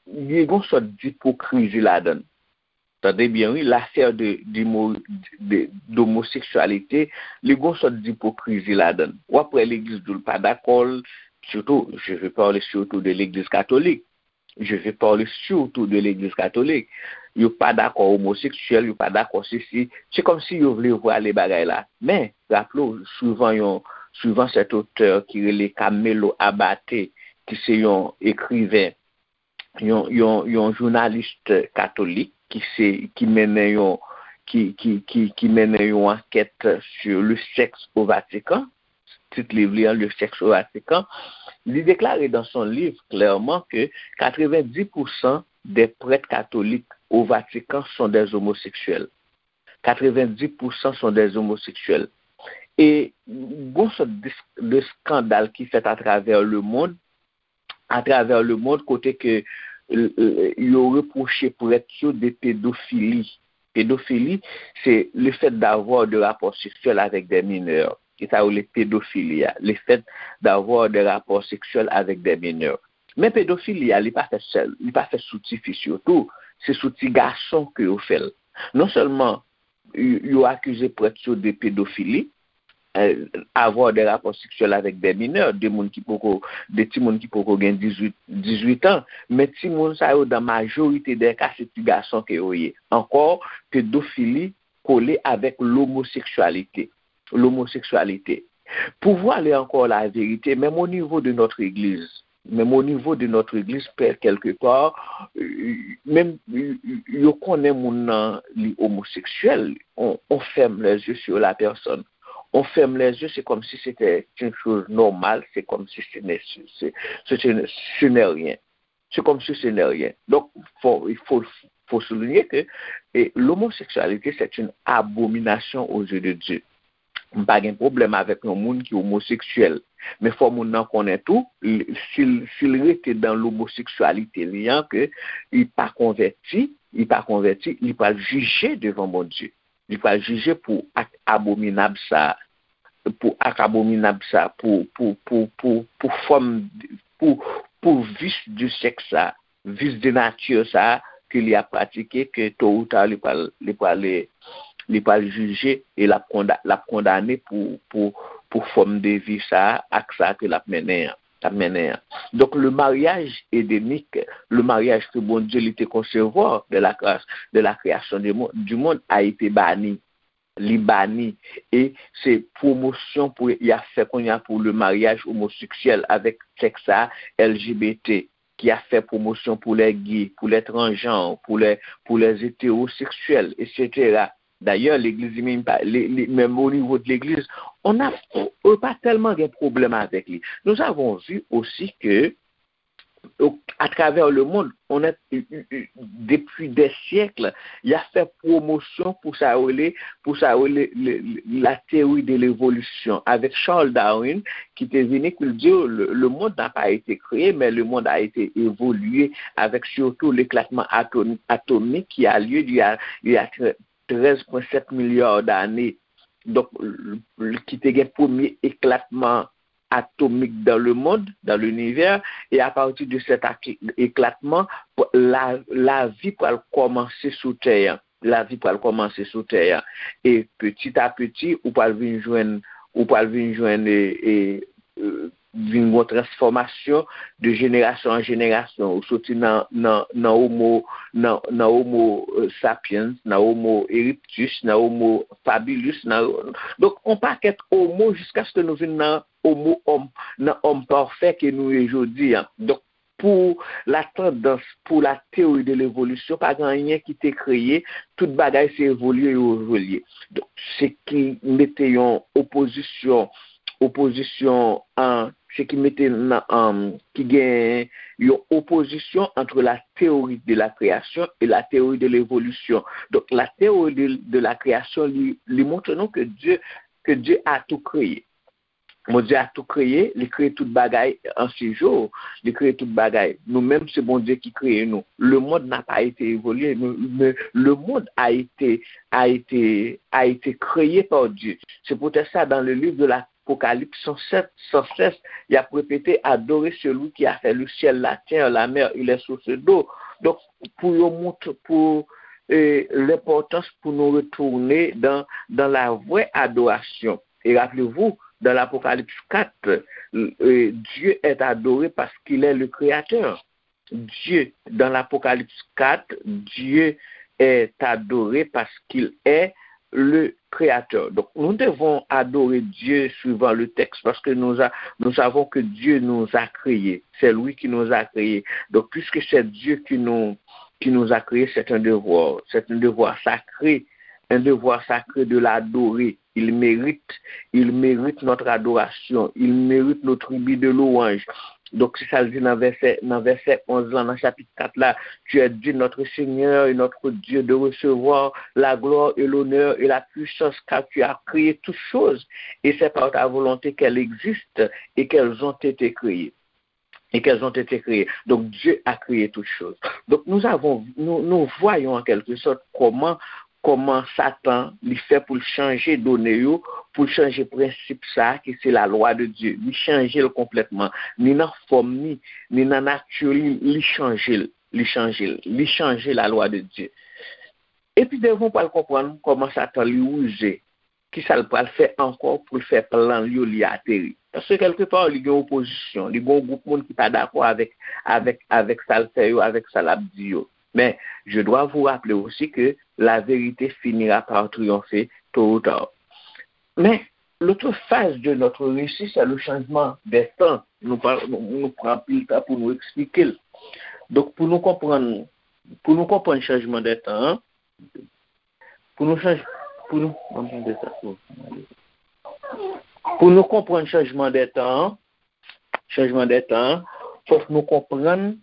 li gon sòt d'ipokrizi ladan l. Tande byen, wi, l'affaire de, d'imo- de, d'homosexualité, li gon sòt d'ipokrizi ladan l. W ap wè legliz di w l pa dakò, surtout, je vais parler surtout de l'église catholique. Je vais parler surtout de l'église catholique. Yo pa dakò omoseksyèl, yo pa dakò sesi. Se kòmsi yo vle vwale bagay la. Men, raple w, suivan yon, suivan cet auteur ki rele Camelo Abate, ki se yon ekriven, yon, yon, yon jounalis katolik ki se, ki mennen yon, ki, ki, ki, ki mennen yon ankèt sur le sexe au Vatican, tit liv li an, Le sexe au Vatican, li deklare dans son livre clairement que quatre-vingt-dix pour cent des prêtres catholiques au Vatican sont des homosexuels. Quatre-vingt-dix pour cent sont des homosexuels. E gon sòt de, de skandal ki fèt atravè le monde, atravè le monde, kote ke, euh, euh, yo repwoche prèt yo de pedofili. Pedofili, c'est le fait d'avoir de rapports sexuels avec des mineurs. E sa yo rele pedofili a, le fait d'avoir des rapports sexuels avec des mineurs. Men pedofili a, li pa fèt sèl, li pa fèt sou tifi sitou, se sou ti gason ke yo fè l. Non sèlman yo, yo akize prèt yo de pedofili, euh, avoir des rapports sexuels avec des mineurs, de moun ki poko, de timoun ki poko gen dizuit, dizuit an, men timoun sa yo, dans majorité des cas, se ti gason ke yo ye. Ankò, pedofili kole avèk lomoseksyalite. Lomoseksyalite. Pou vwale ankò laverite, menm o nivo de notre église, menm o nivo de notre église, pè, quelque part, euh, menm, euh, yo konnen moun nan li omoseksyèl, on, on ferme les yeux sur la personne. On ferme les yeux, c'est comme si c'était une chose normale, c'est comme si ce n'est, ce, ce, ce, ce n'est rien. C'est comme si ce n'est rien. Donc, faut, il faut, faut souligner que, eh, l'homosexualité, c'est une abomination aux yeux de Dieu. M pa gen pwoblèm avèk yon moun ki omoseksyèl. Men fò moun nan konnen tou, li, si l, si l rete dan lomoseksyalite li an, ke li pa konvèti, li pa konvèti, li pral jije devan Bondye. Li pral jije pou ak abominab sa, pou ak abominab sa, pou, pou, pou, pou, pou fòm, pou, pou vis de sèks sa, vis de nati sa ke li ap pratike, ke to ou ta li pral, li pral, li pral jije e l ap konda-, l ap kondane pou, pou, pou fòm de vi sa ak sa ke l ap mennen an, l ap mennen an. Donc, le mariage édénique, le mariage que Bondye li te konsevwa de la création, de la création du monde, du monde a été banni. Li bani. E se pwomosyon pou y ap fè kounye a pou le mariage homosexuel avec sèks sa, L G B T, ki ap fè pwomosyon pou les gays, pou les transgenres, pou les, pou les hétérosexuels, et cetera. Dayè, legliz li menm, pa, li, li, menm o nivo de legliz, on a, yo pa tèlman gen pwoblèm avèk li. Nous avons vu aussi que atravè le monde, on a, depi dè syèk, y ap fè pwomosyon pou sa yo rele, pou sa yo rele, le, le, la théorie de l'évolution. Avec Charles Darwin, ki te vini, ki l di, le, le monde n'a pas été créé, mais le monde a été évolué avec surtout l'éclatement atom-, atomique qui a lieu il y a, il y a treize point sept milliards d'années. Donk, l-, l-, ki te gen premye eklatman atomik dans le monde, dans l'univers, et à partir de cet aki-, éclatement, la, lavi pral kòmanse sou tè a. Lavi pral kòmanse sou tè a. E petit à petit, ou pral vin jwenn, ou pral vin jwenn, e, e, e, vin gon transfòmasyon de jenerasyon an jenerasyon. Ou soti nan, nan, nan homo, nan, nan homo, euh, sapiens, nan homo erectus, nan homo habilis, nan, donk, on pakèt homo jiskaske nou vin nan homo, homme, nan homme parfait ke nou ye jodi a. Donk, pou la tandans, pou la théorie de l'évolution, pa gen anyen ki te kreye, tout bagay se evolye yo evolye. Donk, se ki mete yon opozisyon, opozisyon an, se ki mete nan, an, ki gen yon opozisyon entre la théorie de la création et la théorie de l'évolution. Donk, la théorie de, de la création, li, li montre nou ke Dye, ke Dye a tou kreye. Bondye a tou kreye, li kreye tout bagay an six jou, li kreye tout bagay. Nou menm, se Bondye ki kreye nou. Le monde n'a pas été évolué, mais, mais le monde a été, a été, a été créé par Dieu. C'est pour ça, dans le livre de l'Apocalypse, sans cesse, sans cesse, y ap repete, adorez celui qui a fait le ciel, la terre, la mer et les sources d'eau. Donk, pou yo montre, pou eh, l'importance pour nous retourner dans, dans la vraie adoration. Et rappelez-vous, dans l'Apocalypse quatre, euh, Dieu est adoré parce qu'il est le créateur. Dieu, dans l'Apocalypse quatre, Dieu est adoré parce qu'il est le créateur. Donc, nous devons adorer Dieu suivant le texte parce que nous, a- nous savons que Dieu nous a créés. C'est lui qui nous a créés. Donc, puisque c'est Dieu qui nous, qui nous a créés, c'est un devoir. C'est un devoir sacré, un devoir sacré de l'adorer. Il mérite, il mérite notre adoration. Il mérite nos tribus de louange. Donk, se sa l di nan vèsè, nan vèsè onz lan, nan chapit kat la, Tu es digne, notre Seigneur et notre Dieu, de recevoir la gloire et l'honneur et la puissance, car tu as créé toutes choses, et c'est par ta volonté qu'elles existent et qu'elles ont été créées. Et qu'elles ont été créées. Donc, Dieu a créé toutes choses. Donc, nous avons, nous, nous voyons en quelque sorte comment, comment Satan, li fè pou l chanje done yo, pou l chanje prensip sa a ki se la lwa de Dye. Li chanje l konplètman. Ni nan fòm ni, ni nan nati li, li chanje l. Li chanje l. Li chanje la lwa de Dye. Epi devan w pral konprann kòman Satan li rize. Kisa l pral fè ankò pou l fè plan l yo li ateri? Paske kèlkepa, li gen opozisyon, li gen yon gwoup moun ki pa dakò avèk, avèk, avèk sa l fè yo, avèk sa l ap di yo. Men, je dois vous rappeler aussi que la vérité finira par triompher tôt ou tard. Mais l'autre phase de notre récit, c'est le changement des temps. Nou pa, nou, nou pran anpil tan pou nou eksplike l. Donk, pou nou konprann, pou nou konprann chanjman de tan an, pou nou chanj, pou nou, pou nou konprann chanjman de tan an, chanjman de tan an, fòk nou konprann,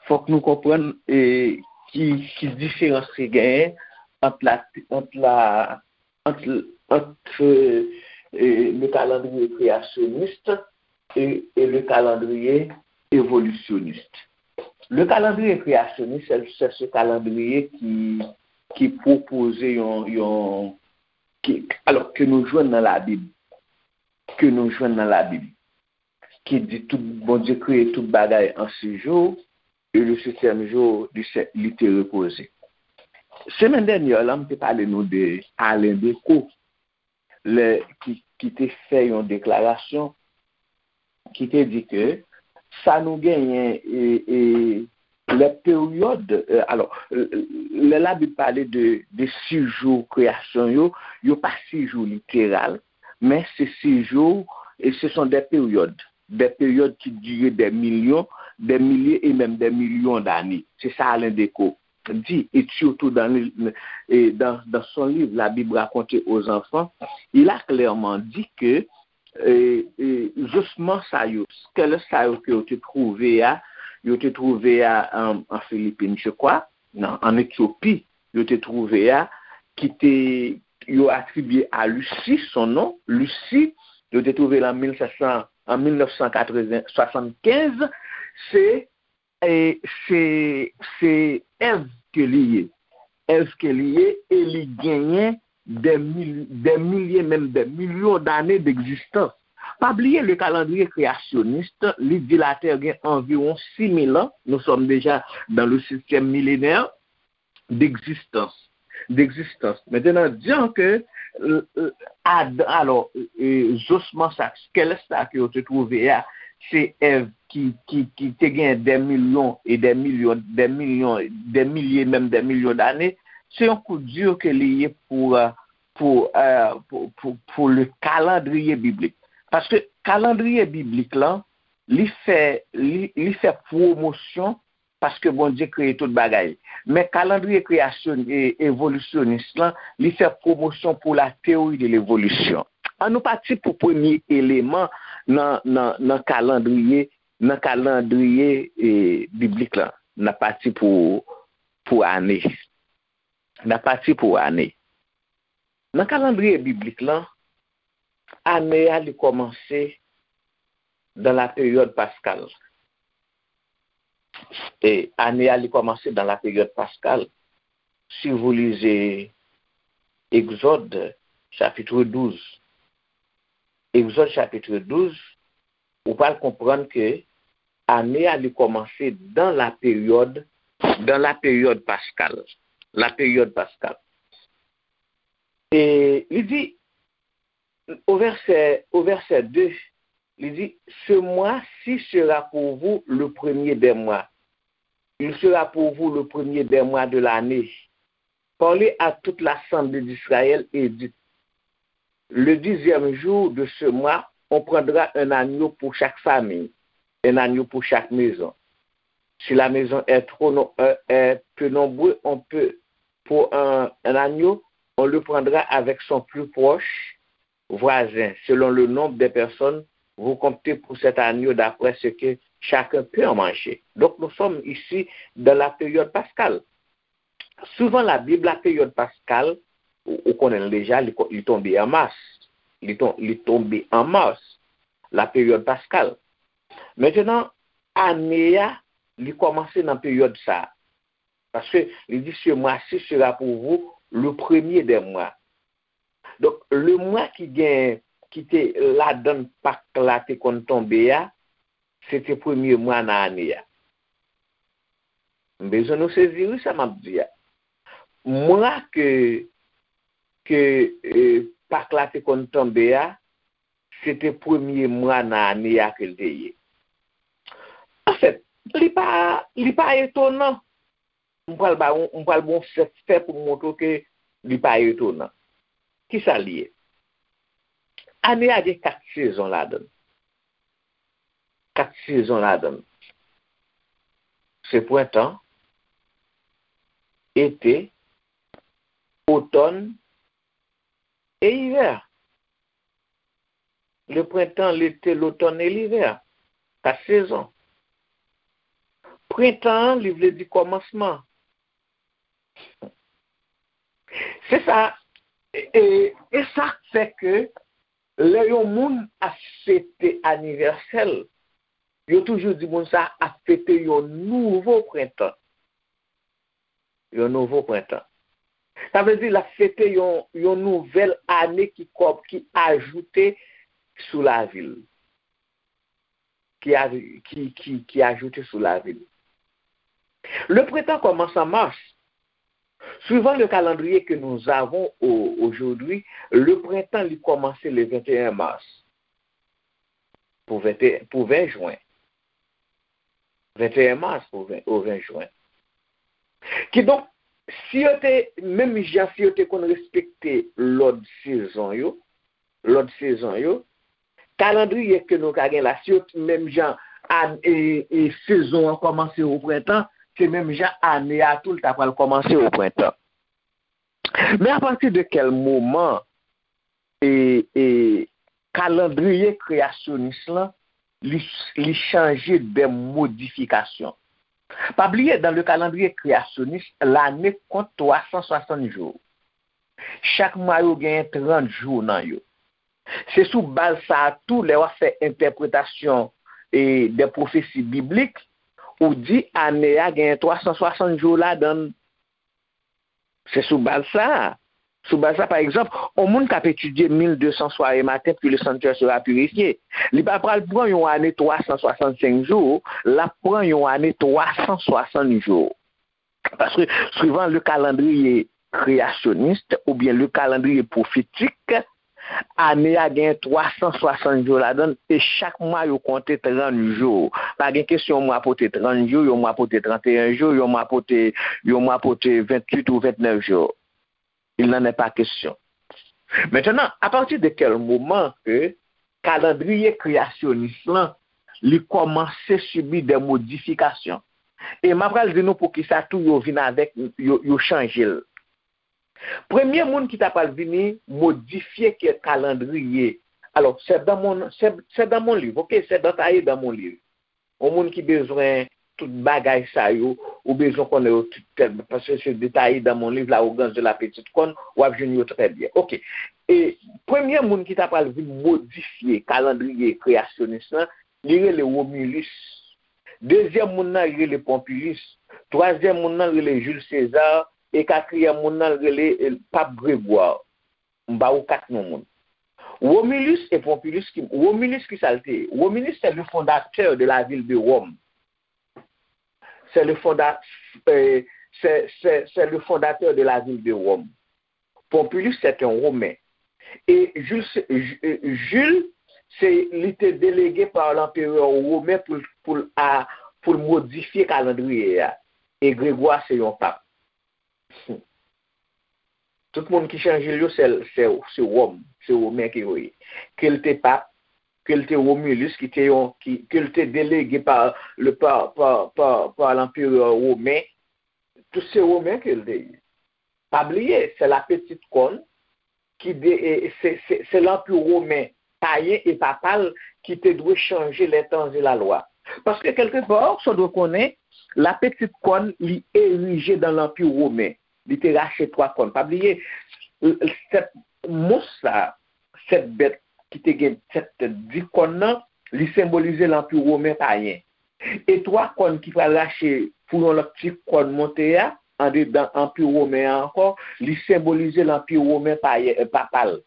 fòk nou konprann, e, ki, ki diferans ki genyen ant la, ant la, ant, ant, e, e, le calendrier créationniste et, et le calendrier évolutionniste. Le calendrier créationniste, c'est, c'est ce calendrier qui, qui propose yon, yon, ki, alò, ke nou jwenn nan Labib, ke nou jwenn nan Labib, ki di tout, Bondye kreye tout bagay an sis jou, e le setyèm jou, li se, li te repoze. Semèn dènyè la, m te pale nou de Alain Decaux, lè, ki, ki te fè yon deklarasyon ki te di ke sa nou genyen, e, e, lè peryòd, e, alò, e, lè Labib pale de, de sis jou kreyasyon yo, yo pa sis jou literal, men se sis jou, e ce sont des périodes, des périodes qui durent des millions, des milliers et même des millions d'années. C'est ça Alain Decaux dit, et surtout dans, le- et dans, dans son livre La Bible racontée aux enfants, il a clairement dit que e, e, osman sa yo, skelèt sa yo ke yo te twouve a, yo te twouve a an, an Filipin, je crois, non, an Etyopi, yo te twouve a, ki te, yo atribye a Lucy son non, Lucy, yo te twouve l an mil sèt san, an mil nèf san katreven, swasannkenz, se e se, se Èv ke li ye. Èv ke li ye, e li genyen des mil-, des milliers, menm des millions d'années d'existence. Pa bliye, le calendrier créationniste, li di Latè gen anviwon sis mil an, nous sommes déjà dans le septième millénaire, d'existence, d'existence. Maintenant, disons que, euh, euh, Adan, alò, e, osman sa, skelèt sa ke yo te twouve a, se Èv ki, ki, ki te gen des millions et des millions, des millions, des milliers, menm des millions d'années, se yon coup dur ke li ye pou, euh, pou, euh, pou, pou, pou le calendrier biblique. Paske kalandriye biblik lan, li fè, li, li fè pwomosyon paske Bondye kreye tout bagay. Men kalandriye kreyasyon, e, evolisyonis lan, li fè pwomosyon pou la théorie de l'évolution. An nou pati pou premye eleman nan, nan, nan kalandriye, nan kalandriye, e, biblik lan. N ap pati pou, pou ane. N ap pati pou ane. Nan kalandriye biblik lan, ane a li kòmanse dans la période pascale. E ane a li kòmanse dans la période pascale. Si vous lisez Exode chapitre douze, Exode chapitre douze, ou pral konprann ke ane a li kòmanse dans la période, dans la période pascale. La période pascale. E li di, au verset, au verset deux, li di, ce mois-ci sera pour vous le premier des mois. Il sera pour vous le premier des mois de l'année. Parlez à toute l'assemblée d'Israël et dites, le dixième jour de ce mois, on prendra un agneau pour chaque famille, un agneau pour chaque maison. Si la maison est trop no- euh, est peu nombreux, on peut, pour un, un agneau, on le prendra avec son plus proche voisin, selon le nombre des personnes, vous comptez pour cet agneau d'après ce que chacun peut en manger. Donc nous sommes ici dans la période pascale. Suivant la Bible, la période pascale, ou, ou konnen l deja, li, ko- li tonbe an mas. Li, ton, li tonbe an mas, la période pascale. Maintenant, ane a, li kòmanse nan peryòd sa a. Paske li di, ce mois-ci sera pour vous le premier des mois. Donk, le mwa ki gen, ki te ladan Pak la te konn tonbe a, se te premye mwa nan ane a. M bezwen nou sezi wi sa m ap di a. Mwa ke, ke e, Pak la te konn tonbe a, se te premye mwa nan ane a ke l te ye. Anfèt, li pa, li pa etonan. M pral ba w, m pral ba w sèt fè pou m montre w ke li pa etonan. Kisa l ye? Ane a gen kat sezon ladan l. Kat sezon ladan l. Se prentan, ete, otòn e ivè. Le printemps, l'été, l'automne et l'hiver. Kat sezon. Prentan an, li vle di kòmansman. Se sa, e, e, e sa k fè ke lè yon moun ap fete anivèsè l, yo toujou di moun sa ap fete yon nouvo prentan. Yon nouvo prentan. Sa vle di l ap fete yon, yon nouvèl ane ki kòb, ki ajoute sou lavi l. Ki, a- ki, ki, ki ajoute sou lavi l. Le printemps commence en mars. Suivant le calendrier que nous avons au- aujourd'hui, le printemps li kòmanse le vingt et un mars. Pou ven, pou ven jen. Venteyen mas pou ven, o ven jen. Kidonk, si yo te, menm jan si yo te konn respekte lòd sezon yo, lòd sezon yo, kalandriye ke nou ka gen la, si yo t- menm jan an- e, e sezon an kòmanse o prentan, se menm jan ane a tou l ta pral kòmanse o prentan. Men apati de kèl moman e, e kalandriye kreyasyonis lan li, li chanje de modifikasyon? Pa bliye, dans le calendrier créationniste, l'année compte trois cent soixante jours. Chak mwa yo genyen trant jou nan yo. Se sou baz sa a tou, lè w ap fè entèpretasyon e de pwofesi biblik, ou di ane a genyen twa san swasant jou ladan l. Se sou baz sa a. Sou baz sa, pa egzanp, yon moun k ap etidye mil de san soirées matin, puis le sanctuaire sera purifié. Li pa pral pran yon ane twa san swasannsenk jou, l ap pran yon ane twa san swasant jou. Paske, suivant le calendrier créationniste oubyen le calendrier prophétique, ane a gen twa san swasant jou ladan l, e chak mwa yo konte trant jou. Pa gen kesyon yon mwa pote trant jou, yon mwa pote tranteyen jou, yon mwa pote, yon mwa pote venntuit ou ventnèf jou. Il n'en est pas question. Maintenant, à partir de quel moment que kalandriye kreyasyonis lan li kòmanse sibi de modifikasyon. E m apral di nou poukisa tou yo vin avèk, yo, yo chanje l. Premye moun ki ta pral vini modifye ke kalandriye. Alò, c'est dans mon, c'est, c'est dans mon livre, ok? C'est détaillé dans mon livre. Yon moun ki bezwen tout bagay sa yo, ou bezwen konnen yo tout tèl, paske se detaye dans mon livre, L'arrogance de la petite corne, w ap jwenn yo trè byen. Ok. E premye moun ki ta pral vin modifye kalandriye kreyasyonis lan, li rele Romulus. Dezyèm moun nan, li rele Pompilus. Twazyèm moun nan, li rele Jules César. E katriyèm moun nan, li rele, eh, Pap Gregwa. M ba ou kat non moun. Romulus et Pompilus, ki, Romulus, ki sa l te ye? Romulus, c'est le fondateur de la ville de Rome. C'est le fonda, euh, c'est, c'est, c'est le fondateur de la ville de Rome. Pompilus, c'est un Romain. Et Jules, Ju- euh, Jules, c'est, li te délégué par l'empereur romain pour, pour, a, pour modifier calendrier. Et Grégoire, c'est un pape. Tout moun ki chanje l yo, se, se, se Wòm, se Women ke yo ye. Ke l te pap, ke l te Romulus, ki te yon, ki, ke l te delege pa, le, pa, pa, pa, pa l'empereur romain, tout se Women ke l te ye. Pa bliye, se la petite corne ki de, e, se, se, se l'Empire romain payen e papal ki te dwe chanje les temps et la loi. Paske, kèlkepar, sa w dwe konnen, la petite corne, li erije dans l'Empire romain. Li te rache twa kòn. Pa bliye, sèt mons sa, sèt bèt ki te gen sèt tèt, dis kòn nan, li senbolize l'Empire romain payen. E twa kòn ki pral rache pou yon lòt ti kòn monte a, andedan Anpi Women an ankò, li senbolize l'Empire romain payen, eh, papal.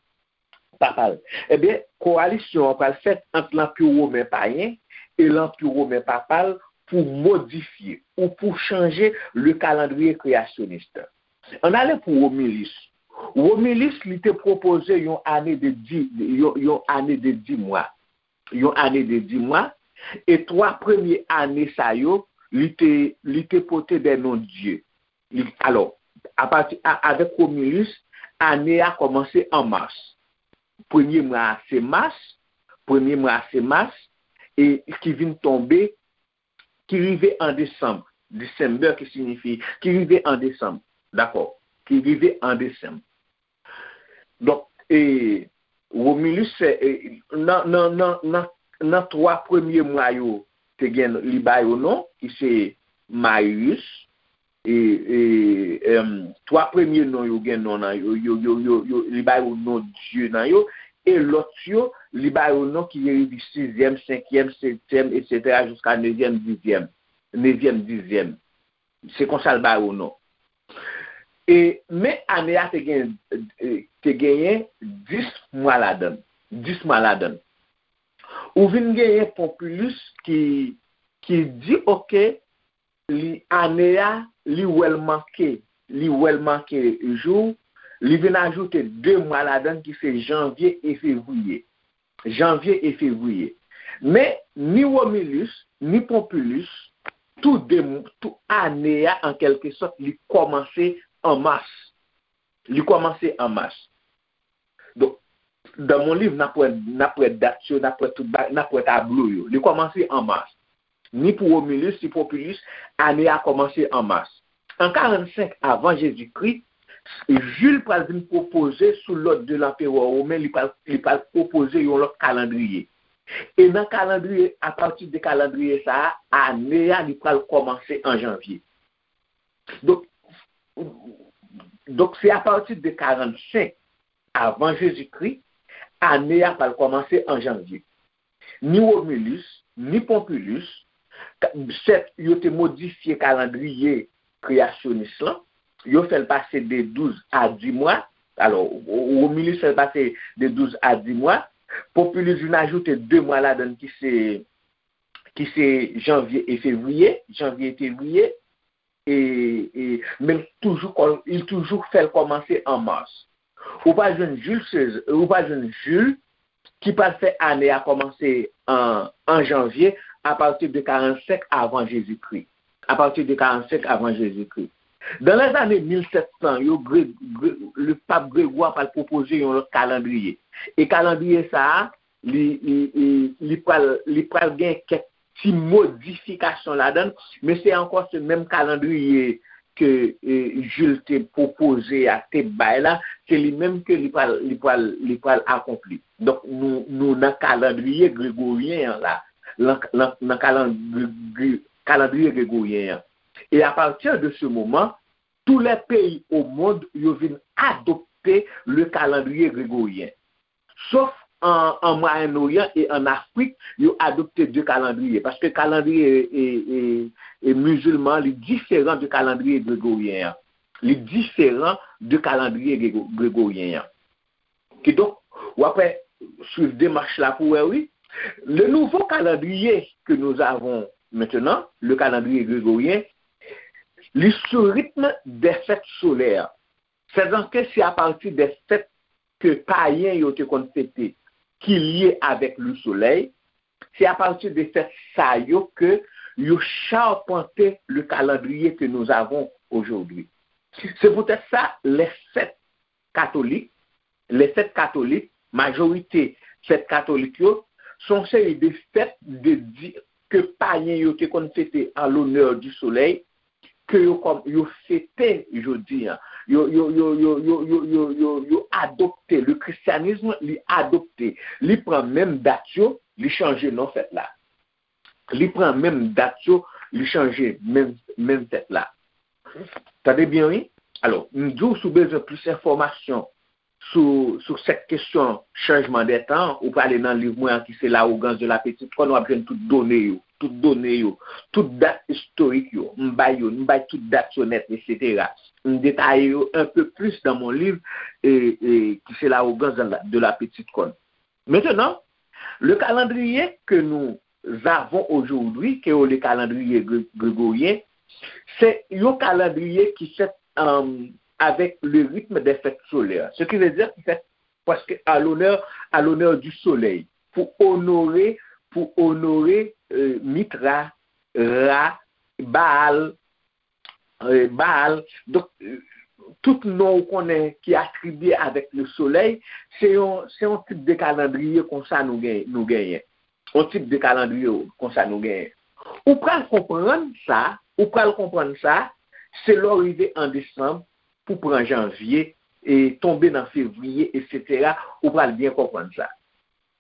Papal. Ebyen, kowalisyon an pral fèt ant l'Empire romain payen e l'Empire romain papal pou modifye ou pou chanje le calendrier créationniste. Ann ale pou Romulus. Romulus, li te pwopoze yon ane de di, yon, yon ane de dis mwa. Yon ane de dis mwa. E twa premye ane sa yo, li te, li te pote de non dye. Li, alò, apati, a, avèk Romulus, ane a kòmanse an mas. Premye mwa a se mas, premye mwa a se mas, e ki vin tonbe, ki rive an desanm, December ki siyifi, ki rive an desanm, dakò, ki rive an desanm. Donk, e, Romulus, e, nan, nan, nan, nan, nan twa premye mwa yo, te gen, li ba yo non, ki se Marius, e, e, em, twa premye non yo gen non nan yo, yo, yo, yo, yo, li ba yo non dye nan yo, e lòt yo, li ba yo non ki rive sizyèm, senkyèm, setyèm, etsetera, jiska nevyèm, dizyèm, nevyèm, dizyèm. Se konsa l ba yo non. E, men ane a te gen, e, te genyen dis mwa ladan l. Dis mwa ladan l. Ou vin genyen Pompilus ki, ki di, oke, li, ane a, li wè l manke, li wè l manke jou, li vin ajoute de mwa ladan l ki se janvye e fevriye. Janvye e fevriye. Men, ni Romulus, ni Pompilus, tou de, tou ane a, an kèlke sòt, li kòmanse an mas. Li kòmanse an mas. Donk, dans mon livre, n ap wè, n ap wè dat yo, n ap wè tout ba, n ap wè tablo yo. Li kòmanse an mas. Ni pou Romulus, ni Pompilus, ane a kòmanse an mas. An karannsenk avan Jezikri, Jules pral vin pwopoze, sou lòd de l'Empereur romain, li pral, li pral pwopoze yon lòt kalandriye. E nan kalandriye, apati de kalandriye sa a, ane a, li pral kòmanse an janvye. Donk, donk, se apati de karannsenk avan Jezikri, ane a pral kòmanse an janvye. Ni Romulus, ni Pompilus, ka, sèt yo te modifye kalandriye kreyasyonis lan, yo fè l pase de douz a dis mwa. Alò, Romulus fè l pase de douz a dis mwa. Pompilus vin ajoute de mwa ladan l ki se, ki se janvye e fevriye, janvye e fevriye. E, e, men l toujou kò, li toujou fè l kòmanse an mas. Ou pral jwenn Jules César, ou pral jwenn Jules ki pral fè ane a kòmanse an, an janvye, apati de karannsenk avan Jezikri. Apati de karannsenk avan Jezikri. Dans les années mil sèt san yo, Gré, Gré, le pape Grégoire pral pwopoze yon lòt kalandriye. E kalandriye sa a, li, li, li, li pral, li pral gen kèk ti modifikasyon ladan l, men se ankò se menm kalandriye ke, e, Jules te pwopoze a, te bay la, se li menm ke li pral, li pral, li pral akonpli. Donk, nou, nou nan kalandriye gregoryen an la, nan, nan, nan kalandri-, kalandriye gregoryen an. E apati de se moman, tou lè peyi o mond yo vin adopte le calendrier grégorien. Sof an, an Mwayen Oryan e an Afrik, yo adopte de kalandriye. Paske kalandriye e, e, e mizilman, li diferan de kalandriye gregoryen an. Li diferan de kalandriye grego- gregoryen an. Kidonk, w ap wè, swiv demach la pou wè, wi. Le nouveau calendrier que nous avons maintenant, le calendrier grégorien, li sou ritm des fêtes solaires. Sètadi ke se apati de fèt ke payen yo te konn fete ki lye avèk le soleil, se apati de fèt sa yo ke yo chapante le calendrier que nous avons aujourd'hui. Se poutèt sa, les fêtes catholiques, les fêtes catholiques, majorite fèt katolik yo, se yon seri de fèt de di ke payen yo te konn fete en l'honneur du soleil, ke yo kòm yo fete jodi an. Yo, yo, yo, yo, yo, yo, yo, yo, yo adopte, le christianisme, li adopte. Li pran menm dat yo, li chanje non fèt la. Li pran menm dat yo, li chanje menm, menm fèt la. Tande byen, wi. Alò, m di w, si w bezwen plis enfòmasyon sou, sou sèt kesyon chanjman dè tan, ou prale nan liv mwen an ki se L'arrogance de la petite corne, w ap jwenn tout done yo, tout done yo, tout dat istorik yo. M bay yo, m bay tout dat yo nèt, etsetera. M detaye yo un peu plus dans mon livre, e, e, ki se L'arrogance de la, de la petite corne. Maintenant, le calendrier que nous avons aujourd'hui, ke yo le calendrier gré- grégorien, se yon kalandriye ki fèt, um, avec le rythme des fêtes solaires. Ce qui veut dire ki fèt prèske à l'honneur, à l'honneur du soleil, pou onore, pou onore, euh, Mitra, Ra, Baal, euh, Baal. Donk, euh, tout non ou konnen ki atribye avèk le soleil, se yon, se yon tip de kalandriye konsa nou gen, nou genyen. Yon tip de kalandriye konsa nou genyen. Ou pral konprann sa, ou pral konprann sa, se lè w rive an desanm, pou pran janvye, e tonbe nan fevriye, etsetera, ou pral byen konprann sa.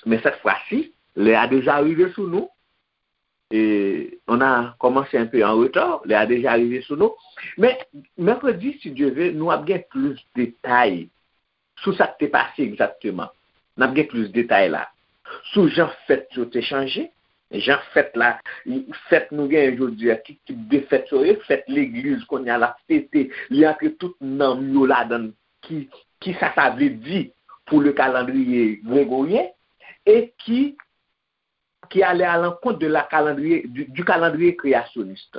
Men cette fois-ci, lè a deja rive sou nou, e on a commencé un peu en retard, lè a deja rive sou nou. Men, mèkredi, si Dye ve, nou ap gen plis detay sou sa k te pase egzakteman. N ap gen plis detay la. Sou jan fèt yo te chanje, jan fèt la, fèt nou genyen jodi a, ki tip de fèt yo ye, fèt legliz kounye a l ap fete, li antre tout nanm yo ladan l, ki, ki sa sa vle di pou le calendrier grégorien, e ki, qui allait à l'encontre de la calendrier, du, du calendrier créationniste,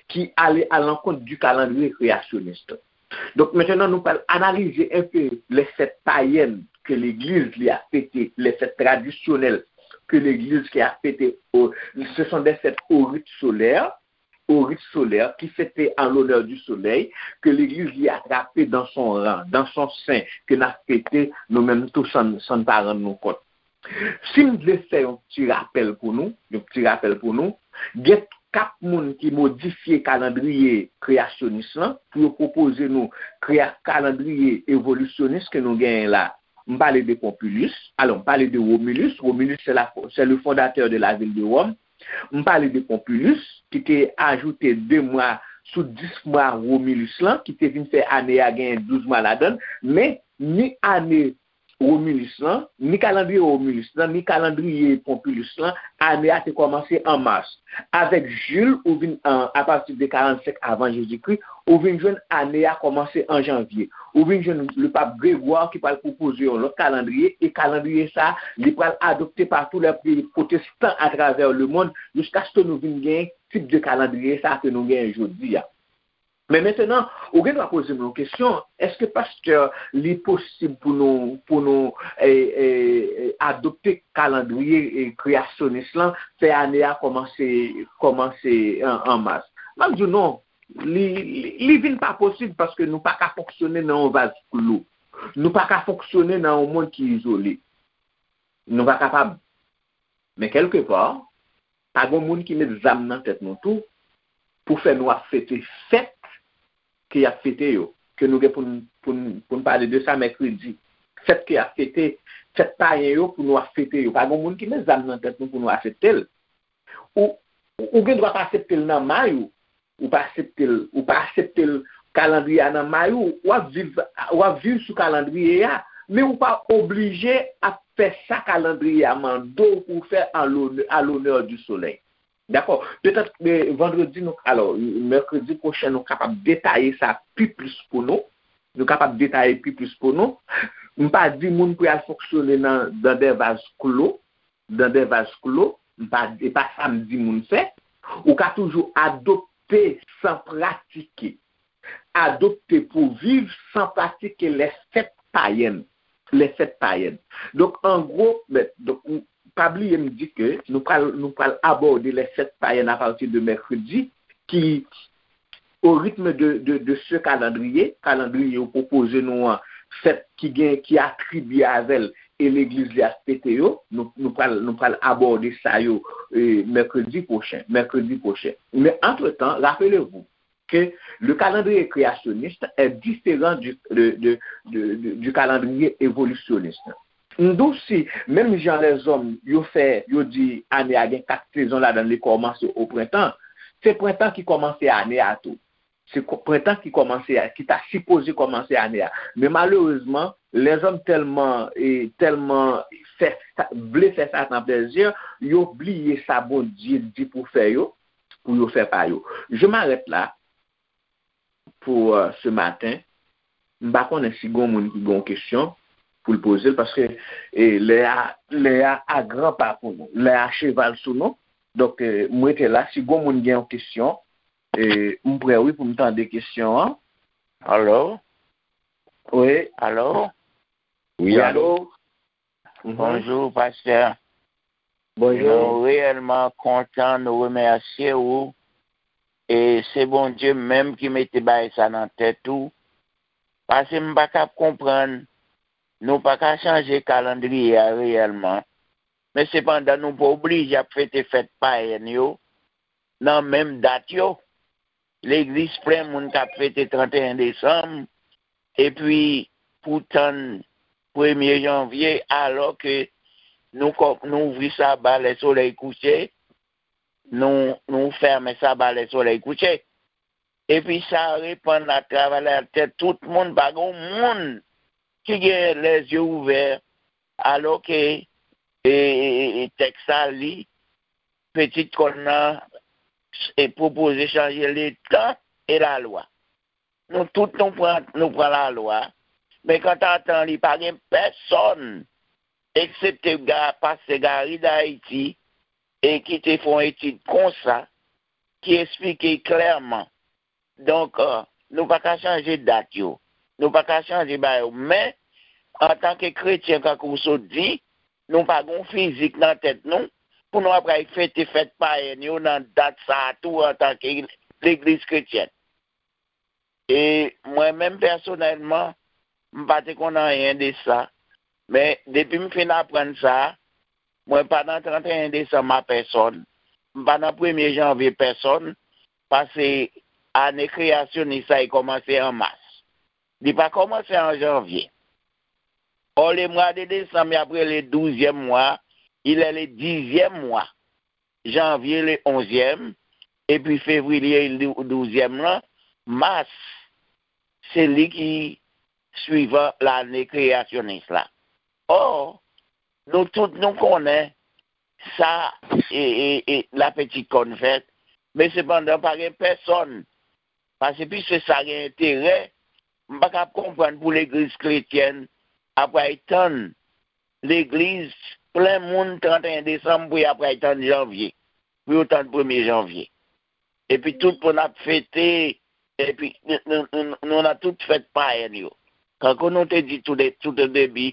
qui allait à l'encontre du calendrier créationniste. Donk, mentnan, nou pral analize un peu les fêtes païennes que legliz li ap fete, les fêtes traditionnelles que legliz ki ap fete, o, ce sont des fêtes au rite solaire, au rite solaire, qui fêtait en l'honneur du soleil, que legliz li atrape dans son rang, dans son sein, ke n ap fete nou menm tou san, san n pa rann nou kont. Si m vle fè yon ti rapèl pou nou, yon ti rapèl pou nou, gen kat moun ki modifye kalandriye kreyasyonis lan pou yo pwopoze nou kreya-, kalandriye evolisyonis ke nou genyen la. M pale de Pompilus, alò, m pale de Romulus. Romulus, c'est la, c'est le fondateur de la ville de Rome. M pale de Pompilus, ki te ajoute de mwa sou dis mwa Romulus lan, ki te vin fè ane a genyen douz mwa ladan l. Men, ni ane Romulus lan, ni kalandriye Romulus lan, ni kalandriye Pompilus lan, ane a te kòmanse an mas. Avèk Jules, ou vin, an, apati de karannsenk avan Jezikri, ou vin jwenn ane a kòmanse an janvye. Ou vin jwenn le pap Grégoire ki pral pwopoze yon lòt kalandriye, e kalandriye sa, li pral adopte pa tou lè peyi pwotestan atravè lemonn, jiskaske nou vin gen tip de kalandriye sa ke nou genyen jodi a. Men mentnan, ou gen dwa poze m yon kesyon, èske pastè, li posib pou nou, pou nou, e, e, e, adopte kalandriye, e, kreyasyonis lan, fè ane a kòmanse, kòmanse an, an mas? M ap di w non, li, li, li vin pa posib paske nou pa ka fonksyone nan yon vaz klou. Nou pa ka fonksyone nan yon mond ki izole. Nou pa kapab. Men kèlkepa, pa gen moun ki met zam nan tèt nou tou pou fè nou ap fete fèt ke y ap fete yo, ke nou gen pou n, pou n, pou n pale de sa mèkredi. Fèt ke y ap fete, fèt payen yo pou nou ap fete yo. Pa gen moun ki met zam nan tèt nou pou nou aksepte l. Ou, ou gen dwa pa aksepte l nan may ou, ou pa aksepte l, ou pa aksepte l kalandriye a nan may ou, w ap viv, w ap viv sou kalandriye a, men ou pa oblije ap fè sa kalandriye a mande w pou w fè a lonè, à l'honneur du soleil. Dakò? Petèt, eh, vandredi, nou, alò, mèkredi pwochen, nou kapab detaye sa pi plis pou nou. Nou kapab detaye pi plis pou nou. M pa di moun pou y al fonksyone nan, dans des vases clos, dans des vases clos, m pa, e pa sa m di moun fè. Ou ka toujou adopte san pratike. Adopte pou viv san pratike les fêtes païennes. Les fêtes païennes. Donk, an gwo, men, donk, m, pa bliye m di ke nou pral, nou pral abòde les fêtes païennes à partir de mercredi, ki, au rythme de, de, de ce calendrier, kalandriye yo pwopoze nou an, fèt ki gen, ki atribye avè l, e legliz li ap fete yo, nou, nou pral, nou pral abòde sa yo, eh, mèkredi pwochen, mèkredi pwochen. Men antretan, rappelez-vous que le calendrier créationniste est différent du, de, de, de, de, du calendrier évolutionniste. M di w si, menm jan lèzòm yo fè, yo di ane a gen kat sezon ladan l, li kòmanse o prentan, se prentan ki kòmanse ane a tou. Se ko-, prentan ki kòmanse a, ki ta sipoze kòmanse ane a. Men malerezman, lèzòm tèlman, e, tèlman fè sa, vle fè Satan plèzi, yo bliye sa Bondye di pou fè yo, pou yo fè pa yo. Je m'arrête là pour, euh, ce matin. M pa konnen si gon moun ki gon kesyon pou l poze l, paske, e, lè a, lè a a gran pa pou nou, lè a cheval sou nou. Donk, e, m rete la. Si gon moun gen yon kesyon, e, m prè, wi, pou m tande kesyon an. Alo? Wi. Alo? Wi, wi, alo? Alo? Mhm. Bonjou, pastè. Bonjou. Nou reyèlman kontan, nou remèsye ou. E se Bondye menm ki mete bagay sa nan tèt ou. Paske m pa ka konprann, nou pa ka chanje kalandriye a reyèlman. Men sepandan, nou pa oblije ap fete fèt payèn yo nan menm dat yo. Legliz plen moun k ap fete trannteyen desanm, epi pou tann premye janvye, alò ke nou kò-, nou ouvri saba lè solèy kouche, nou, nou fèmen saba lè solèy kouche. Epi sa repann atravè latè, tout moun, pa gen moun ki gen lèzye ouvè, alò ke, e, e, e, e tèks la li, pitit kòn nan, e pwopoze chanje letan e lalwa. Nou tout nou pran, nou pran lalwa, men kanta tan li pa gen pèsonn, eksepte Ga-, pastè Gary Dayiti, e ki te fè yon etid konsa, ki eksplike klèman. Donk, e, nou pa ka chanje dat yo. Nou pa ka chanje bagay yo. Men, antanke kretyen, kankou w sot di, nou pa gen yon fizik nan tèt nou pou nou ap pral fete fèt payèn yo nan dat sa a tou antanke legliz kretyèn. E mwen menm pèsonèlman, m pa te konn anyen de sa. Men depi m fin aprann sa, mwen pa nan trannteyen desanm a pèsonn. M pa nan premye janvye pèsonn, paske ane kreyasyonis la, li kòmanse an mas. Li pa kòmanse an janvye. Or, le mois de décembre, y ap rele douzième mois, il est le dixième mois. Janvye, le onzième, epi fevriye, le douzième lan, mas, se li ki swivan lane kreyasyonis la. Or, nou tout nou konnen sa, e, e, e, la pitit kòn fèt, men sepandan pa gen pèsonn, paske piske sa gen enterè, m pa ka konprann pou legliz kretyèn ap pral tann, legliz plen moun trannteyen desanm pou y ap pral tann janvye, pou yo tann premye janvye. Epi tout moun ap fete, epi nou, nou, nou, nou nan tout fèt payèn yo. Kankou nou te di tou de, tout o debi,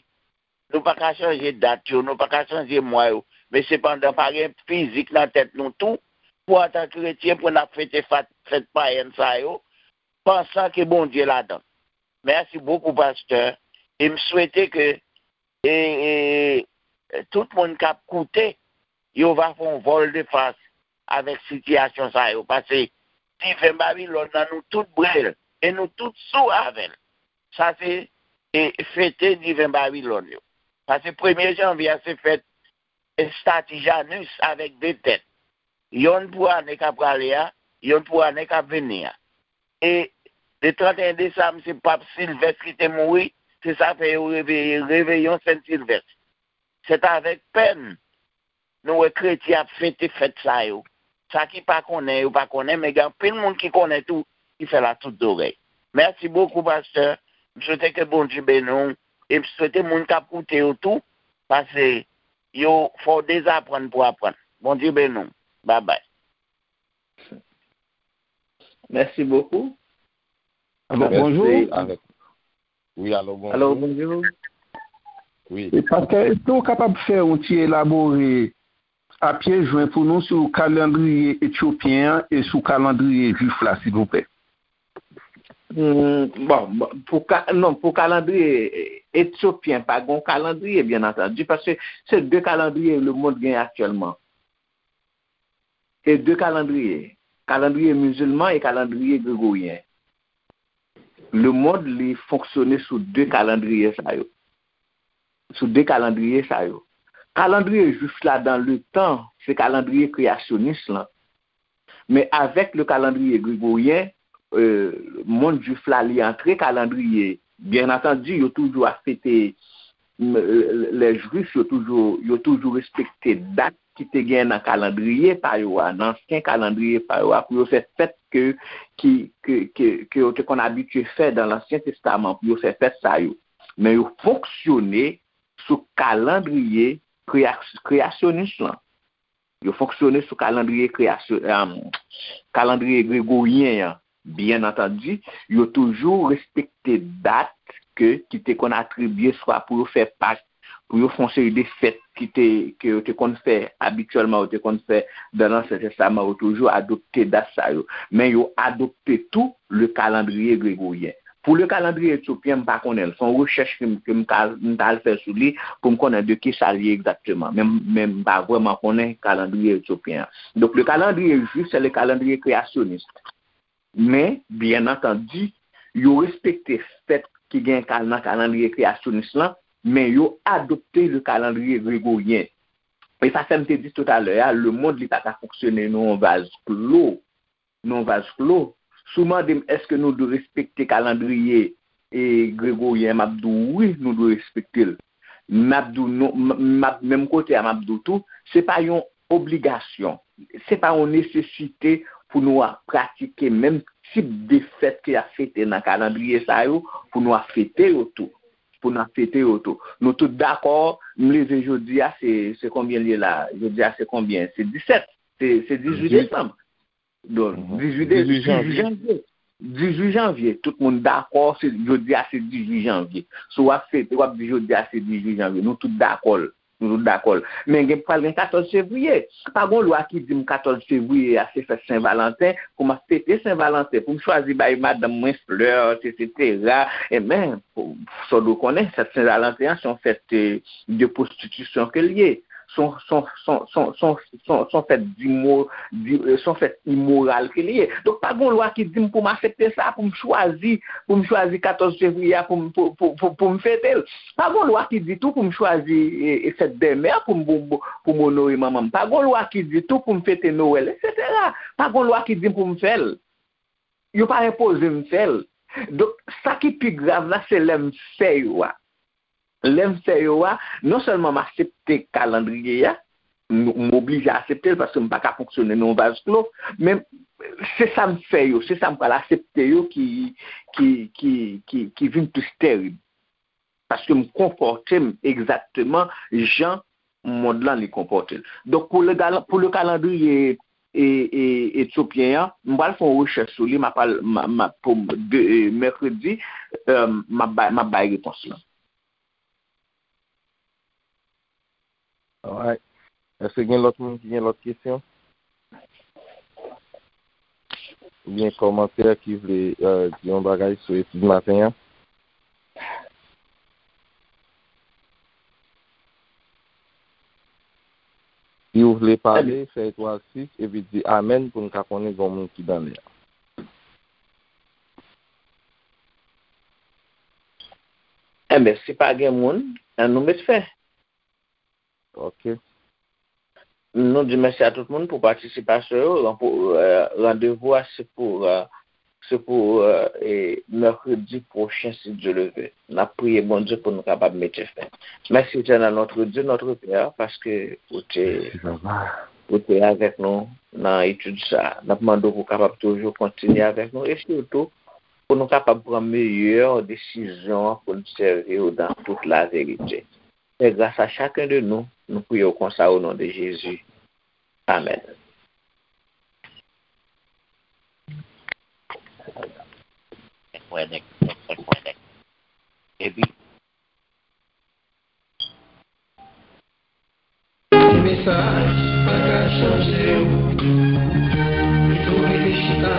nou pa ka chanje dat yo, nou pa ka chanje mwa yo, men sepandan pa gen fizik nan tèt nou tou, pou antan kretyen, pou n ap fete fat-, fèt payèn sa yo, pansan ke Bondye ladan. Mèsi bokou, pastè, e m swete ke, e, e, tout moun k ap koute, yo va fè yon vòl de fas avèk sitiyasyon sa yo. Paske diven Babilòn nan, nou tout bwè l e nou tout sou avè l. Sa se e, fete diven Babilòn yo. Paske premye janvye a se fèt estati Janus avèk de tèt. Yonn pou ane k ap prale a, yonn pou ane k ap vini a. E le trannteyen desanm, se Pap Silvès ki te mouri, se sa fè yo reveye Reveyon Sen Silvès. Se avèk pèn nou wè kretyen ap fete fèt sa yo. Sa ki pa konnen, yo pa konnen, men gen anpil moun ki konnen tou, ki fè l a tout zòrèy. Mèsi bokou, pastè. M swete ke Bondye beni w. E m swete moun k ap koute yo tou, paske yo fè w dezaprann pou aprann. Bondye beni w. Babay. Mèsi bokou. Alo, bonjou. Wi, alo, bonjou. Alo, bonjou. Wi. E pastè, èske w kapab fè yon ti elabore a pye jwen pou nou sou kalandriye etyopyen an e sou kalandriye jwif la, silvouplè? Hmm, bon, bon, pou ka, non, pou kalandriye etyopyen, pa gen kalandriye, byen antandi, paske se de kalandriye lemonn gen aktyèlman. E de kalandriye, kalandriye mizilman e kalandriye gregoryen. Lemonn li fonksyone sou de kalandriye sa yo. Sou de kalandriye sa yo. Kalandriye jwif la dan letan, se kalandriye kreyasyonis lan. Men avèk le kalandriye gregoryen, e, monn jwif la li antre kalandriye. Byen antandi, yo toujou ap fete, lè jwif yo toujou, yo toujou respekte dat ki te gen nan kalandriye pa yo a, nan ansyen kalandriye pa yo a, pou yo fè fèt ke, ki, ke, ke, ke yo te konn abitye fè dan Lansyen Testaman, pou yo fè fèt sa yo. Men yo fonksyone sou kalandriye kreya- kreyasyonis lan. Yo fonksyone sou kalandriye kreyasyon, kalandriye gregoryen an. Byen antandi, yo toujou respekte dat ke ki te konn atribye swa pou yo fè Pak, pou yo fè yon seri de fèt ki te ke yo te konn fè abityèlman, yo te konn fè dan Ansyen Testaman, yo toujou adopte dat sa yo. Men yo adopte tou le kalandriye gregoryen. Pou le kalandriye etyopyen, m pa konnen l. Se yon rechèch ke m ke m ka m t al fè sou li pou m konnen de kisa l ye egzakteman. Men men m pa vrèman konnen kalandriye etyopyen an. Donk le kalandriye jwif se le kalandriye kreyasyonis. Men, byen antandi, yo respekte fèt ki gen kal nan kalandriye kreyasyonis lan, men yo adopte le kalandriye gregoryen. E sa fè m te di toutalè a, lemonn li pa ka fonksyone nan yon vaz klo. Nan yon vaz klo. Si w mande m èske nou dwe respekte kalandriye e gregoryen, m ap di w wi, nou dwe respekte l. M ap di w non, m ap menm kote a, m ap di w tou, se pa yon obligasyon, se pa yon nesesite pou nou ap pratike menm tip de fèt ke y ap fete nan kalandriye sa yo, pou nou ap fete yo tou. Pou n ap fete yo tou. Nou tout dakò, m leve jodi a, se se konbyen l ye la? Jodi a se konbyen? Se disèt. Se se dizuit desanm. Donk, dizuit de, dizuit janvye. Dizuit janvye. Tout moun dakò, se jodi a se dizuit janvye. Si w ap fete, w ap di jodi a se dizuit janvye. Nou tout dakò l. Nou tout dakò l. Men gen pral gen katòz fevriye. Pa gen yon lwa ki di m katòz fevriye a se fèt Sen Valanten, pou m ap fete Sen Valanten, pou m chwazi bay madanm mwen flè, etsetera. Enben, sa w dwe konnen, fèt Sen Valanten an se yon fèt de pwostitisyon ke l ye. Se yon fèt imoral ke li ye. Donk pa gen yon lwa ki di m pou m aksepte sa, pou m chwazi, pou m chwazi katòz fevriye a pou m pou, pou, pou, pou m fete l. Pa gen yon lwa ki di tou pou m chwazi e, e fèt bèlmè pou m pou, pou, pou m onore manman m. Pa gen yon lwa ki di tou pou m fete Nwèl, etsetera. Pa gen yon lwa ki di m pou m fè l. Yo pa enpoze m fè l. Donk, sa ki pi grav la, se lè m fè yo a. Lè m fè yo a, non sèlman m aksepte kalandriye a, m oblije aksepte l paske m pa ka fonksyone nan yon vaz klo, men se sa m fè yo, se sa m pral aksepte yo ki ki ki ki ki vin plis tèrib. Paske m konpòte m egzakteman jan mond lan li konpòte l. Donk pou le pou le kalandriye e, e, etyopyen an, m pral fè yon rechèch sou li, m ap al m ap pou de, e, mèkredi, e, m ap bay m ap bay repons lan. Alright. Èske gen lòt moun ki gen lòt kesyon? Oubyen kòmantè ki vle e, di yon bagay sou etid maten an? Si w vle pale, fè etwal sis epi di amèn pou n ka konnen gen yon moun ki nan lè a. Enben, si pa gen moun, ann nou met fen. Ok. Nou di mèsi a tout moun pou patisipasyon yo. Ranpo- eh, randevou a se pou, eh, se pou, eh, e, mèkredi pwochen, si Dye le ve. N ap priye Bondye pou nou kapab mete fen. Mèsi, Etènèl, notre Dieu, notre Père, paske ou te, ou te avèk nou nan etid sa a. N ap mande w pou w kapab toujou kontinye avèk nou e sitou pou nou kapab pran meyè desizyon an pou n sèvi w dan tout laverite. Fè gras a chacun de nous. Nou priye w konsa o non de Jezi. Amèn. Epi, ti mesaj pa ka chanje w. Pito w rete chita,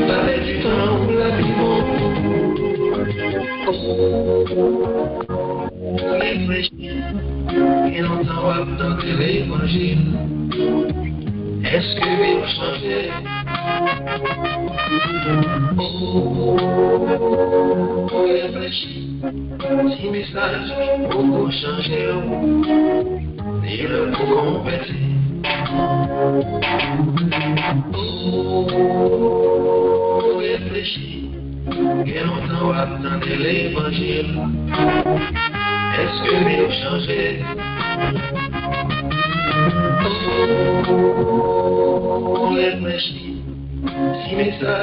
pale di tan ou la pi bon. Reflechi. Gen lontan w ap tande levanjil. Èske vi w chanje? O, reflechi. Ti mesaj poko chanje w. Li lè pou konvèti. O, reflechi. Gen lontan w ap tande levanjil. Èske vi w chanje? O, reflechi. Ti mesaj.